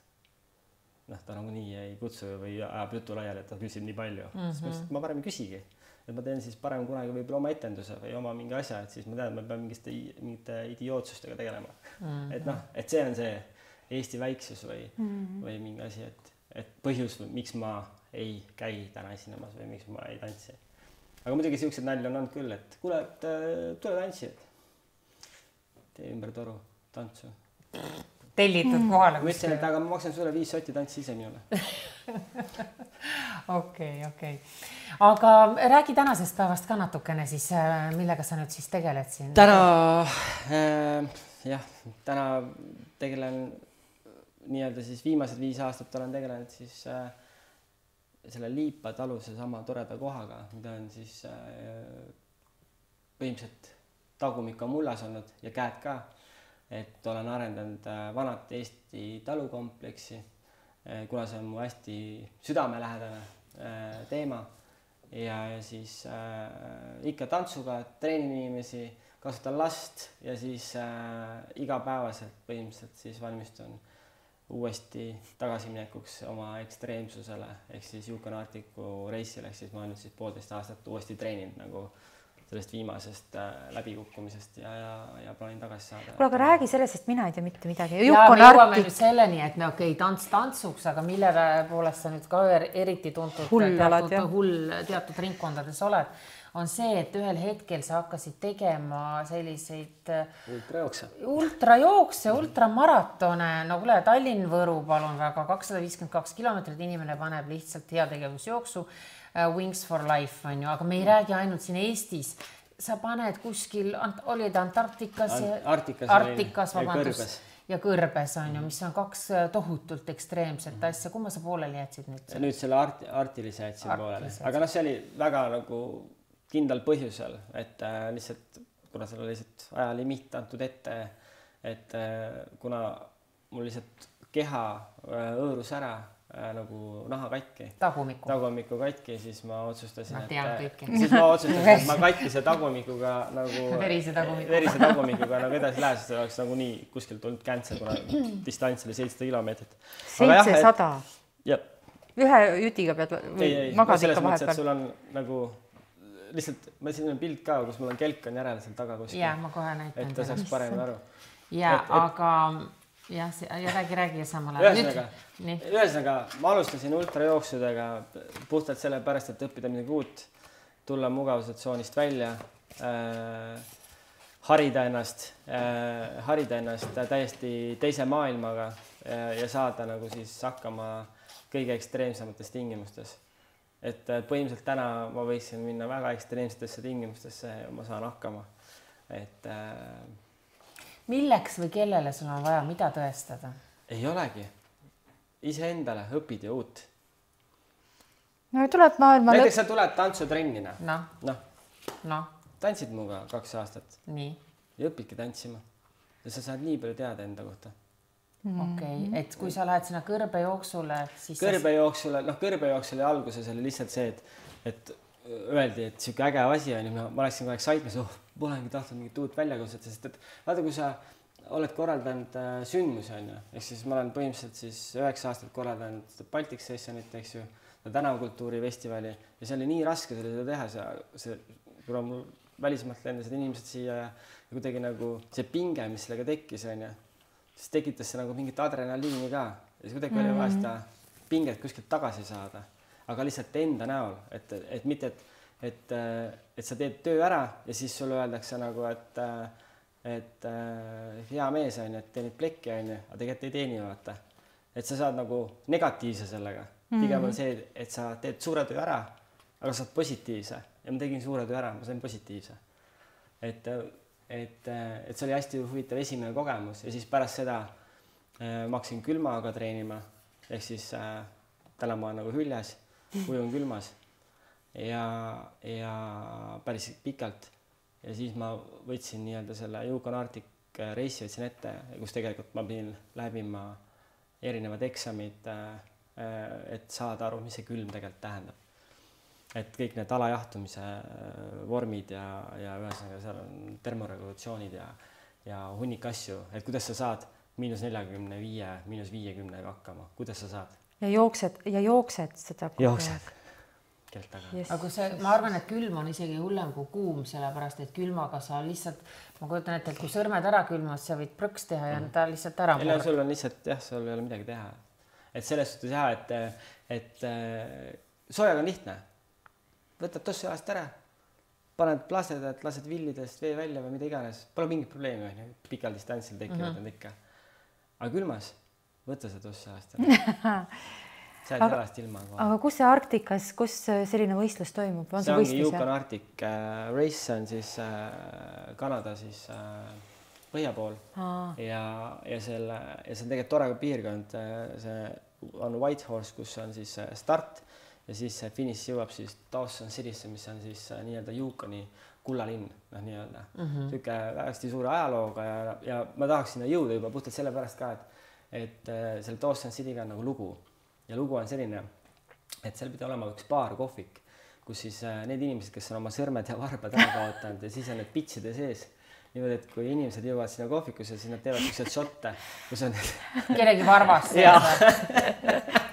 noh, ta nagu nii ei kutsu või ajab jutu laiali, et ta küsib nii palju. Siis ma parem ei küsigi. Et ma teen siis parem kunagi võib-olla oma etenduse või oma mingi asja, et siis ma tean, et ma pean mingite idiootsustega tegelema. Et noh, et see on see Eesti väiksus või mingi asi, et põhjus, miks ma ei käi täna esinemas või miks ma ei tantsi. Aga muidugi siuksed nalja on olnud küll, et kuule, et tule tantsi, et tee ümber toru tantsu. Tellitud kohale. Ma ütlesin, et aga ma maksan sulle 5 sotti tantsi ise minule. Okei. Aga räägi tänasest päevast ka natukene siis, millega sa nüüd siis tegeled siin? Täna tegelen nii-öelda siis viimased 5 aastat olen tegelenud siis selle Liipa taluse sama toreda kohaga, mida on siis põhimõtteliselt tagumik on mullas olnud ja käed ka, et olen arendanud vanat Eesti talukompleksi, kuna see on mu hästi südamelähedane teema ja siis ikka tantsuga treenin inimesi, kasutan last ja siis igapäevaselt põhimõtteliselt siis valmistun uuesti tagasiminekuks oma ekstreemsusele ehk siis Yukon Arcticu reisile, ehk siis ma olen nüüd siis 1,5 aastat uuesti treeninud nagu sellest viimasest läbikukkumisest ja plaanin tagasi saada. Kuule, aga räägi sellest, sest mina ei tea mitte midagi. Ja me jõuame nüüd selleni, et me tants tantsuks, aga mille poolest sa nüüd ka eriti tuntud teatud ringkondades oled, on see, et ühel hetkel sa hakkasid tegema selliseid ultrajookse, ultramaratone, no kuule, Tallinn-Võru palun väga, 252 kilomeetrit, inimene paneb lihtsalt heategevusjooksu, Wings for Life on ju, aga me ei räägi ainult siin Eestis. Sa paned kuskil, olid Antarktikas ja Kõrbes on ju, mis on 2 tohutult ekstreemset asja. Kumma sa pooleli jätsid nüüd? Nüüd selle artilise jätsin pooleli. Aga noh, see oli väga nagu kindlal põhjusel, et lihtsalt, kuna seal oli lihtsalt ajalimiit antud ette, et kuna mul lihtsalt keha õõrus ära nagu naha katki. Tagumiku katki, siis ma otsustasin, et ma katkise tagumikuga nagu verise tagumikuga nagu edasi lähes, sest oleks nagu nii kuskil tulnud käntse, kuna distants oli 700 kilomeetrit. 700? Jah. Ühe jütiga pead magad ikka vahepeal? Sul on nagu lihtsalt, ma siin on pilt ka, kus mul on kelk on järel seal taga kuskil. Jaa, ma kohe näitan. Et ta saaks paremini aru. Jaa, aga jah, räägi samal ajal. Ühesõnaga, ma alustasin ultrajooksudega puhtalt selle pärast, et õppida midagi uut, tulla mugavustsoonist välja, harida ennast täiesti teise maailmaga ja saada nagu siis hakkama kõige ekstreemsemates tingimustes. Et põhimõtteliselt täna ma võiksin minna väga ekstreemsetesse tingimustesse ja ma saan hakkama. Et milleks või kellele sul on vaja, mida tõestada? Ei olegi. Iseendale õpid ja uut. No tuleb maailma... Näiteks sa tuled tantsutrennina. No. Tantsid muga 2 aastat. Nii. Ja õpidki tantsima. Ja sa saad nii palju teada enda kohta. Okei, et kui sa lähed sinna kõrbejooksule, siis... Kõrbejooksule alguses oli lihtsalt see, et öeldi, et siuke äge asi on ja ma läksin kogu aeg saitmes, polengi tahtnud mingit uut väljakutset, sest et vaata, kui sa oled korraldanud sündmusi on ju, ehk siis ma olen põhimõtteliselt siis 9 aastat korraldanud Baltic Sessionit, eks ju, tänavakultuuri festivali ja see oli nii raske seda teha, kuna mul välismaalt lendasid inimesed siia ja kuidagi nagu see pinge, mis sellega tekkis on ju, siis tekitas see nagu mingit adrenaliini ka ja siis kuidagi oli vaja seda pinget kuskilt tagasi saada, aga lihtsalt enda näol, et mitte, et sa teed töö ära ja siis sulle öeldakse nagu, et hea mees on, et teenid plekki on, aga tegelikult ei teeni vaata. Et sa saad nagu negatiivse sellega. Pigem on see, et sa teed suure töö ära, aga saad positiivse ja ma tegin suure töö ära, ma sain positiivse. Et see oli hästi huvitav esimene kogemus ja siis pärast seda ma hakkasin külmaga treenima ehk siis täna ma olen nagu hüljes, ujun külmas ja päris pikalt ja siis ma võtsin nii-öelda selle Yukon Arctic reisi võtsin ette, kus tegelikult ma pidin läbima erinevad eksamid, et saada aru, mis see külm tegelikult tähendab. Et kõik need alajahtumise vormid ja ühesõnaga seal on termoregulatsioonid ja hunnik asju, et kuidas sa saad -45, -50 hakkama, kuidas sa saad? Ja jooksed seda kogu aeg. Yes. Aga ma arvan, et külm on isegi hullem kui kuum, sellepärast, et külmaga sa lihtsalt, ma kujutan ette, et kui sõrmed ära külmad, sa võid prõks teha ja ta lihtsalt ära murda. Sul on lihtsalt, sul ei ole midagi teha. Et selles suhtes et soojaga on lihtne. Võtad tossu jalast ära, paned plastedat, lased villidest vee välja või mida iganes. Pole mingit probleemi, pikal distantsil tekivad need ikka. Aga külmas, võta seda tossu jalast ära. Sa oled jalast ilma. Aga kus see Arktikas, kus selline võistlus toimub? See ongi Yukon Arctic Race, on siis Kanada siis põhja pool ja see on tegelikult tore piirkond. See on Whitehorse, kus on siis start ja siis finiš jõuab siis Dawson Citysse, mis on siis nii-öelda Yukoni kullalinn, nii-öelda. Süke hästi suure ajalooga ja ma tahaks sinna jõuda juba puhtalt sellepärast ka, et selle Dawson Cityga on nagu lugu. Ja lugu on selline, et seal pidi olema üks baar, kohvik, kus siis need inimesed, kes on oma sõrmed ja varbad ära kaotanud ja siis on need pitside sees. Niimoodi, et kui inimesed jõuavad sinna kohvikusse, siis nad teevad ükselt šotte, kus on kellegi varvas.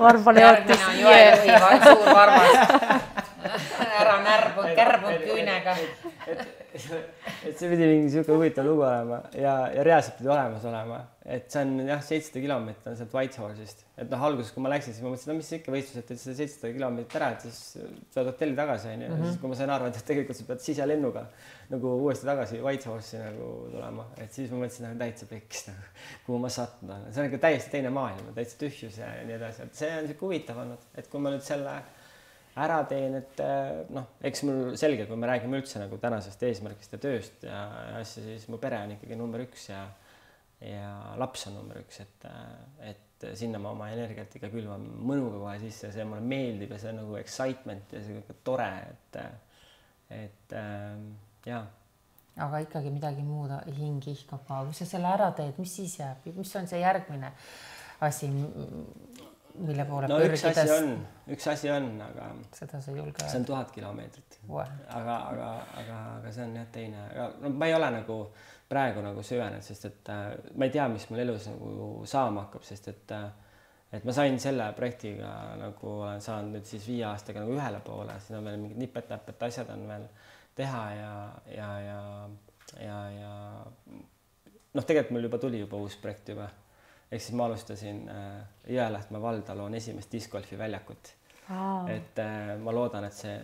Varbale jättis. Suur varvas. Ära kärbunud küünega. Et see pidi mingi siuke huvitav lugu olema ja reaalselt pidi olemas olema. Et see on 700 kilomeetrit on sealt Whitehorse'ist. Et alguses, kui ma läksin, siis ma mõtlesin, mis ikka võistlus, et see 700 kilomeetrit ära, et siis saad hotelli tagasi. Siis kui ma sain arvata, et tegelikult sa pead siselennuga nagu uuesti tagasi Whitehorse'i nagu tulema. Et siis ma mõtlesin, täitsa pekkis, kuhu ma sattunud olen. See on ikka täiesti teine maailm, täitsa tühjus ja nii edasi. Et see on siuke huvitav olnud, et kui ma nüüd selle ära teen, et eks mul selge, kui me räägime üldse nagu tänasest eesmärgist ja tööst ja asja, siis mu pere on ikkagi number 1 ja laps on number 1, et sinna ma oma energiat ikka külvan mõnuga kohe sisse ja see mulle meeldib ja see on nagu excitement ja see on tore, et jaa. Aga ikkagi midagi muud hing ihkab ka. Kui sa selle ära teed, mis siis jääb? Mis on see järgmine asi, mille poole pürgides? Üks asi on, aga seda sa julge. See on 1000 kilomeetrit. Aga see on jah teine. Ma ei ole nagu praegu nagu süvenenud, sest et ma ei tea, mis mul elus nagu saama hakkab, sest et ma sain selle projektiga nagu olen saanud nüüd siis 5 aastaga nagu ühele poole, siin on veel mingid nipet-näpet asjad on veel teha ja tegelikult mul juba tuli uus projekt juba. Ehk siis ma alustasin Jõelähtme valda loon esimest discgolfi väljakut. Et ma loodan, et see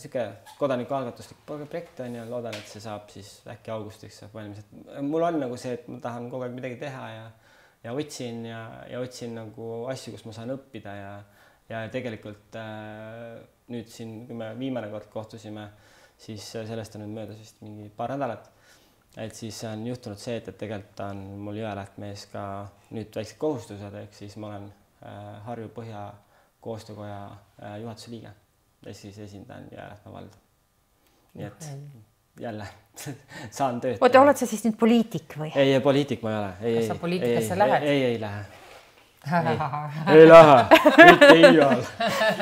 siuke kodanikualgatuslik projekt on ja loodan, et see saab siis äkki augustiks saab valmis. Mul on nagu see, et ma tahan kogu aeg midagi teha ja otsin nagu asju, kus ma saan õppida ja tegelikult nüüd siin, kui me viimane kord kohtusime, siis sellest on nüüd möödas vist mingi paar nädalat. Et siis on juhtunud see, et tegelikult on mul Jõelähtmees ka nüüd väiksed kohustused, ehk siis ma olen Harju Põhja koostöökoja juhatuse liige ja siis esindan Jõelähtme valda. Nii et jälle saan tööd. Oota, oled sa siis nüüd poliitik või? Ei, poliitik ma ei ole. Kas sa poliitikasse lähed? Ei lähe. Ei lähe, mitte iial.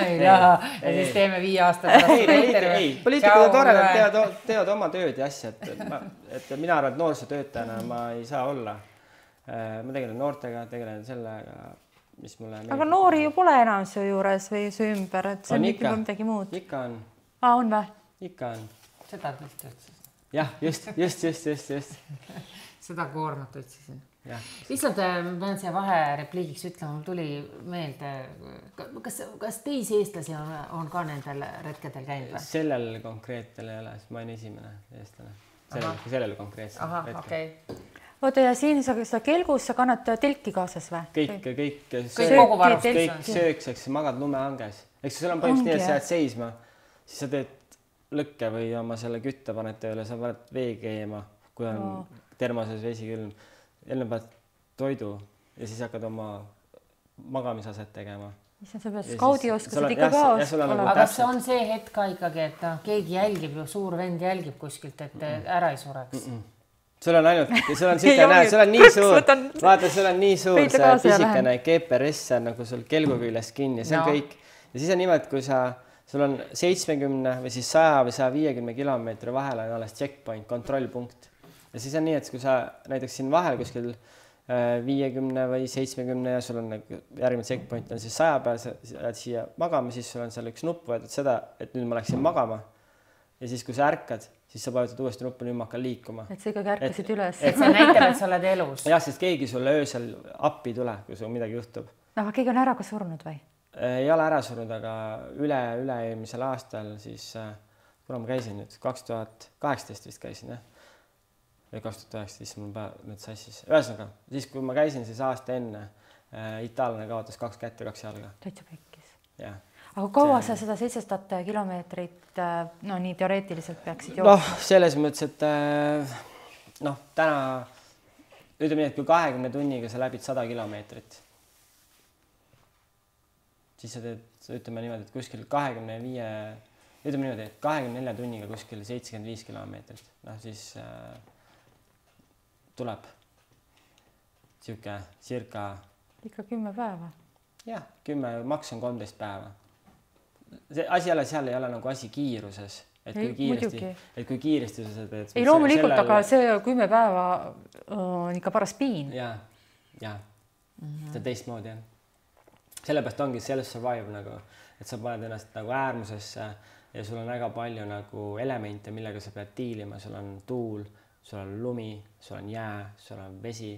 Ei lähe ja siis teeme 5 aastat. Ei, poliitikud on tore, nad teevad oma tööd ja asja, et mina arvan, et noorsootöötajana ma ei saa olla. Ma tegelen noortega, tegelen sellega, mis mulle meeldib. Aga noori ju pole enam su juures või su ümber, et see on ikka midagi muud. Ikka on. On või? Ikka on. Seda tõesti otsisin. Jah, just. Seda koormat otsisin. Lihtsalt pean siia vaherepliigiks ütlema, mul tuli meelde, kas teisi eestlasi on ka nendel retkedel käinud või? Sellel konkreetel ei ole, sest ma olen esimene eestlane. Sellel konkreetsel retkel. Okay. Oota, ja siin sa kelgus, sa kannad telki kaasas või? Kõik sööks, magad lumehanges. Eks sul on põhimõtteliselt nii, et sa jääd seisma, siis sa teed lõkke või oma selle kütte paned tööle, sa paned vee keema, kui on termoses vesi külm. Jälle pead toidu ja siis hakkad oma magamisaset tegema. Sa pead skaudioskused ikka ka olema. Aga kas on see hetk ka ikkagi, et keegi jälgib ju, suur vend jälgib kuskilt, et ära ei sureks? Sul on ainult, sul on nii suur, vaata, sul on nii suur see pisikene GPS nagu sul kelgu küljest kinni, see on kõik. Ja siis on niimoodi, kui sul on 70 või siis 100 või 150 kilomeetri vahel on alles checkpoint, kontrollpunkt. Ja siis on nii, et kui sa näiteks siin vahel kuskil 50 või 70 ja sul on järgmine checkpoint on siis 100 peal, sa jääd siia magama, siis sul on seal üks nupp võetud seda, et nüüd ma läksin magama. Ja siis, kui sa ärkad, siis sa vajutad uuesti nuppu, nüüd ma hakkan liikuma. Et sa ikkagi ärkasid üles. Et see näitab, et sa oled elus. Jah, sest keegi sulle öösel appi tule, kui sul midagi juhtub. Aga keegi on ära ka surnud või? Ei ole ära surnud, aga üle-eelmisel aastal siis, kuna ma käisin nüüd, 2018 vist käisin, jah? Või 2019 mul nüüd sassis. Ühesõnaga, siis kui ma käisin, siis aasta enne itaallane kaotas 2 kätt ja 2 jalga. Täitsa pekkis. Jah. Aga kaua sa seda 700 kilomeetrit, no nii teoreetiliselt peaksid jooksma? Noh, selles mõttes, et täna ütleme nii, et kui 20 tunniga sa läbid 100 kilomeetrit, siis sa teed, ütleme niimoodi, et kuskil 24 tunniga kuskil 75 kilomeetrit. Noh, siis tuleb circa ikka 10 päeva. Jah, 10, maks on 13 päeva. See asi jälle seal ei ole nagu asi kiiruses, et kui kiiresti sa teed. Ei loomulikult, aga see 10 päeva on ikka paras piin. Ja. See on teistmoodi, jah. Sellepärast ongi self-survive nagu, et sa paned ennast nagu äärmusesse ja sul on väga palju nagu elemente, millega sa pead diilima. Sul on tuul, sul on lumi, sul on jää, sul on vesi,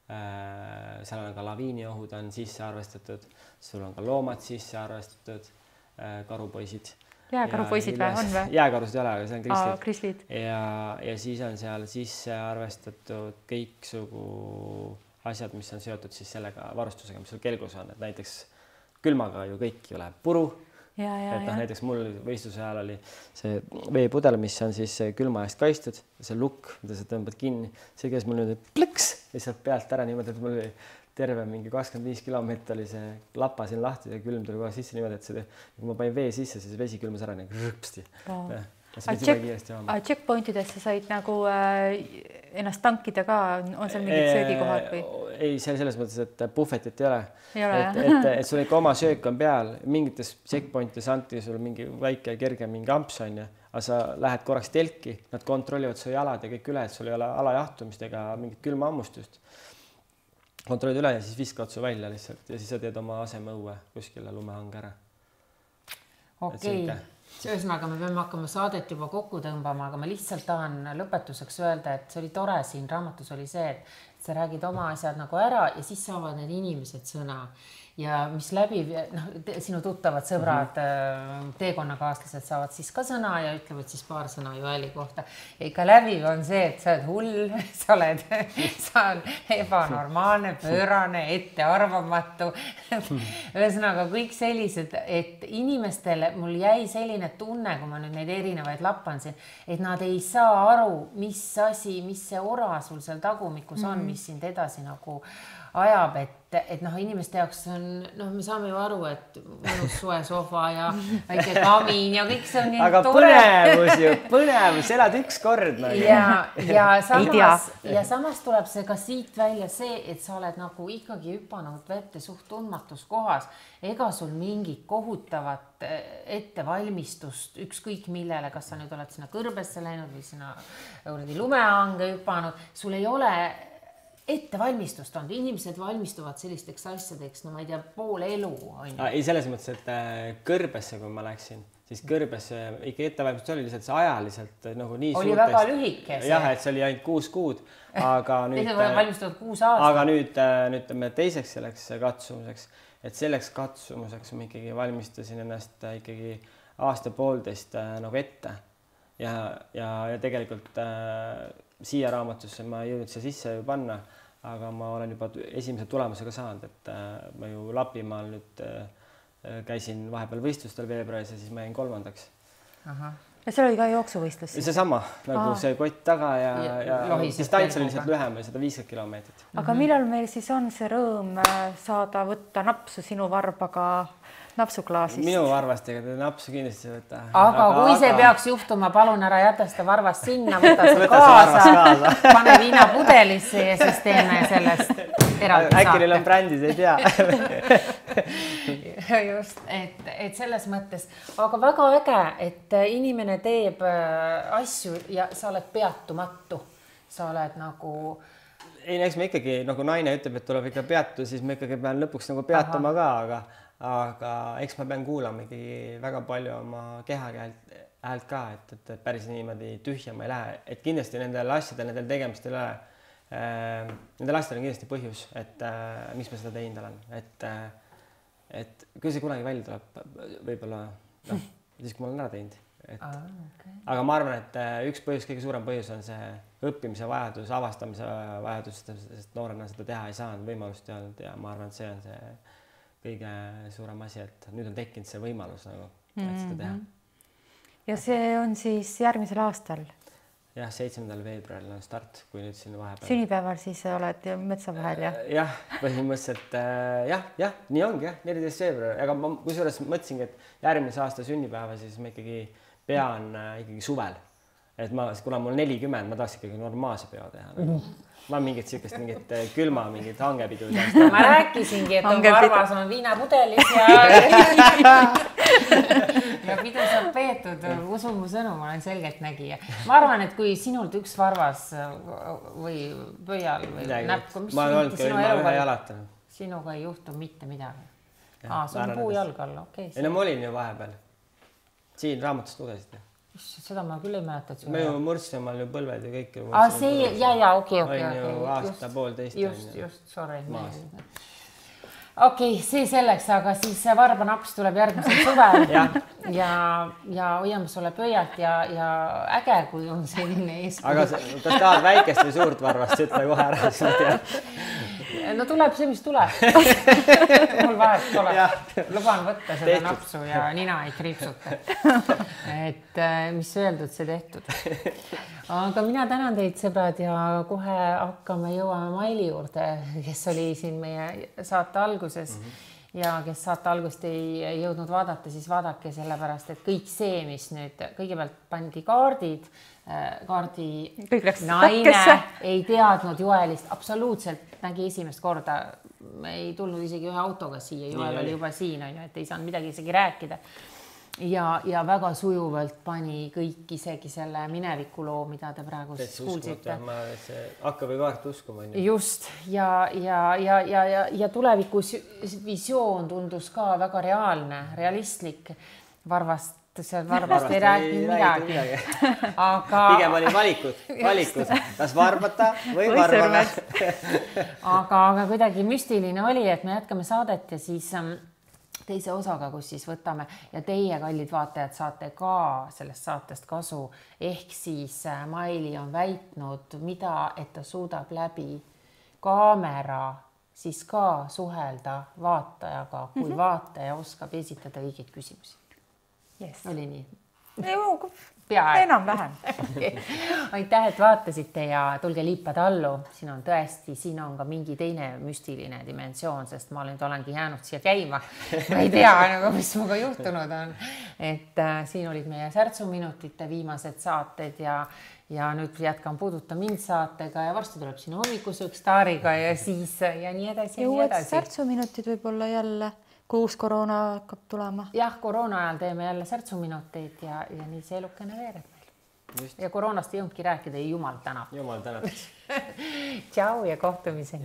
seal on ka laviiniohud on sisse arvestatud, sul on ka loomad sisse arvestatud, karupoisid. Jääkarupoisid on või? Jääkarusid ei ole, aga see on krislid. Ja siis on seal sisse arvestatud kõiksugu asjad, mis on seotud siis sellega varustusega, mis sul kelgus on, et näiteks külmaga ju kõik ju läheb puru. Näiteks mul võistluse ajal oli see veepudel, mis on siis külma eest kaistud, see lukk, mida sa tõmbad kinni, see käis mul nüüd plõks lihtsalt pealt ära niimoodi, et mul oli terve mingi 25 kilomeetrit oli see lapa siin lahti ja külm tuli kohe sisse niimoodi, et kui ma panin vee sisse, siis vesi külmas ära nii rõpsti. Checkpointidesse said nagu ennast tankida ka, on seal mingid söögikohad või? Ei, selles mõttes, et puhvetit ei ole. Et sul ikka oma söök on peal, mingites checkpointides anti sul mingi väike kerge mingi amps on ja, aga sa lähed korraks telki, nad kontrollivad su jalad ja kõik üle, et sul ei ole alajahtumist ega mingit külma ammustust. Kontrollid üle ja siis viskavad su välja lihtsalt ja siis sa teed oma aseme õue kuskile lumehange ära. Okei. Ühesõnaga, me peame hakkama saadet juba kokku tõmbama, aga ma lihtsalt tahan lõpetuseks öelda, et see oli tore siin raamatus oli see, et sa räägid oma asjad nagu ära ja siis saavad need inimesed sõna. Ja mis läbi, sinu tuttavad sõbrad, teekonnakaaslased saavad siis ka sõna ja ütlevad siis paar sõna Joeli kohta. Ja ikka läbi on see, et sa oled hull, sa oled ebanormaalne, pöörane, ettearvamatu. Ühesõnaga kõik sellised, et inimestele mul jäi selline tunne, kui ma nüüd neid erinevaid lappansin, et nad ei saa aru, mis asi, mis see ora sul seal tagumikus on, mis sind edasi nagu ajab, et inimeste jaoks on, me saame ju aru, et mõnus soe sofa ja väike kamin ja kõik see on nii aga tore. Põnevus, elad üks kord. Ja samas tuleb see ka siit välja see, et sa oled nagu ikkagi hüpanud vette suht tundmatus kohas. Ega sul mingit kohutavat ettevalmistust ükskõik millele, kas sa nüüd oled sinna kõrbesse läinud või sinna lumehange hüpanud, sul ei ole ettevalmistust on, inimesed valmistuvad sellisteks asjadeks, ma ei tea, pool elu on. Ei, selles mõttes, et kõrbesse, kui ma läksin, siis kõrbesse ikka ettevalmistus oli lihtsalt see ajaliselt nagu nii oli suurtest. Väga lühike see. Jah, et see oli ainult 6 kuud, aga nüüd valmistuvad 6 aastat. Aga nüüd teiseks selleks katsumuseks, et selleks katsumuseks ma ikkagi valmistasin ennast ikkagi aasta-poolteist nagu ette ja tegelikult siia raamatusse ma ei jõudnud see sisse ju panna, aga ma olen juba esimese tulemusega saanud, et ma ju Lapimaal nüüd käisin vahepeal võistlustel veebruaris ja siis ma jäin 3. ja seal oli ka jooksuvõistlus. Seesama nagu see kott taga ja distants oli lihtsalt lühem, 150 kilomeetrit. Aga millal meil siis on see rõõm saada võtta napsu sinu varbaga napsuklaasist? Minu varvastega te napsu kindlasti võtta. Aga kui see peaks juhtuma, palun ära jäta seda varvast sinna, võta see kaasa, pane viinapudelisse ja siis teeme sellest eraldi saate. Äkki neil on brändid, ei tea. Just, et selles mõttes, aga väga äge, et inimene teeb asju ja sa oled peatumatu. Sa oled nagu... Ei, eks me ikkagi, nagu naine ütleb, et tuleb ikka peatu, siis me ikkagi pean lõpuks nagu peatuma ka, aga eks ma pean kuulama ikkagi väga palju oma keha häält ka, et päris niimoodi tühja ma ei lähe, et kindlasti nendel asjadel, nendel tegemistel nendel asjadel on kindlasti põhjus, et miks ma seda teinud olen, et kui see kunagi välja tuleb, võib-olla siis kui ma olen ära teinud. Aga ma arvan, et üks põhjus, kõige suurem põhjus on see õppimise vajadus, avastamise vajadus, sest noorena seda teha ei saanud, võimalust ei olnud ja ma arvan, et see on see kõige suurem asi, et nüüd on tekkinud see võimalus nagu, et seda teha. Ja see on siis järgmisel aastal? Jah, 7. veebruaril on start, kui nüüd siin vahepeal. Sünnipäeval siis oled metsa vahel, jah? Jah, põhimõtteliselt jah, nii ongi jah, 14. veebruar, aga ma kusjuures mõtlesingi, et järgmise aasta sünnipäeva siis ma ikkagi pean ikkagi suvel. Et kuna mul 40, ma tahaks ikkagi normaalse peo teha. Ma mingit külma, mingit hangepidu. Ma rääkisingi, et on varvas on viinapudelis ja pidu saab peetud, usu mu sõnu, ma olen selgelt nägija. Ma arvan, et kui sinult üks varvas või pöial või näpku, sinuga ei juhtu mitte midagi. See on puujalg all, okei. Ei, no ma olin ju vahepeal. Siin raamatust lugesid. Seda ma küll ei mäleta, et me ju murdsime omal ju põlved ja kõik. See, okei. On ju aasta poolteist. Just, sorry. Okei, see selleks, aga siis varbanaps tuleb järgmisel suvel ja hoiame sulle pöialt ja äge, kui on selline eeskuju. Aga kas tahad väikest või suurt varvast, ütle kohe ära. No tuleb see, mis tuleb. Mul vahet pole. Luban võtta seda napsu ja nina ei kriipsuta. Et mis öeldud, see tehtud. Aga mina tänan teid, sõbrad, ja kohe hakkame jõuame Maili juurde, kes oli siin meie saate alguses ja kes saate algust ei jõudnud vaadata, siis vaadake sellepärast, et kõik see, mis nüüd kõigepealt pandi kaardi naine ei teadnud Joelist, absoluutselt nägi esimest korda, ei tulnud isegi ühe autoga siia, Joel oli juba siin, et ei saanud midagi isegi rääkida. Ja väga sujuvalt pani kõik isegi selle minevikuloo, mida te praegu kuulsite. Hakka või kaart uskuma. Just, ja tulevikus visioon tundus ka väga reaalne, realistlik. Varvast ei rääkinud midagi. Pigem oli valikud, kas varbata või varbada. Aga kuidagi müstiline oli, et me jätkame saadet ja siis teise osaga, kus siis võtame ja teie, kallid vaatajad, saate ka sellest saatest kasu. Ehk siis Maili on väitnud, et ta suudab läbi kaamera siis ka suhelda vaatajaga, kui vaataja oskab esitada õigeid küsimusi. Oli nii? Enam-vähem. Aitäh, et vaatasite ja tulge liipad allu. Siin on tõesti, siin on ka mingi teine müstiline dimensioon, sest ma olengi jäänud siia käima. Ma ei tea, mis muga juhtunud on. Et siin olid meie särtsuminutite viimased saated ja nüüd jätkan Puuduta mind saatega ja varsti tuleb sinu hommikusõks staariga ja siis ja nii edasi. Ja uued särtsuminutid võib-olla jälle. Kui uus koroona hakkab tulema. Jah, koroona ajal teeme jälle särtsuminuteid ja nii see elukene veereb meil. Ja koroonast ei jõudnudki rääkida ja jumal tänab. Jumal tänab. Tšau ja kohtumiseni.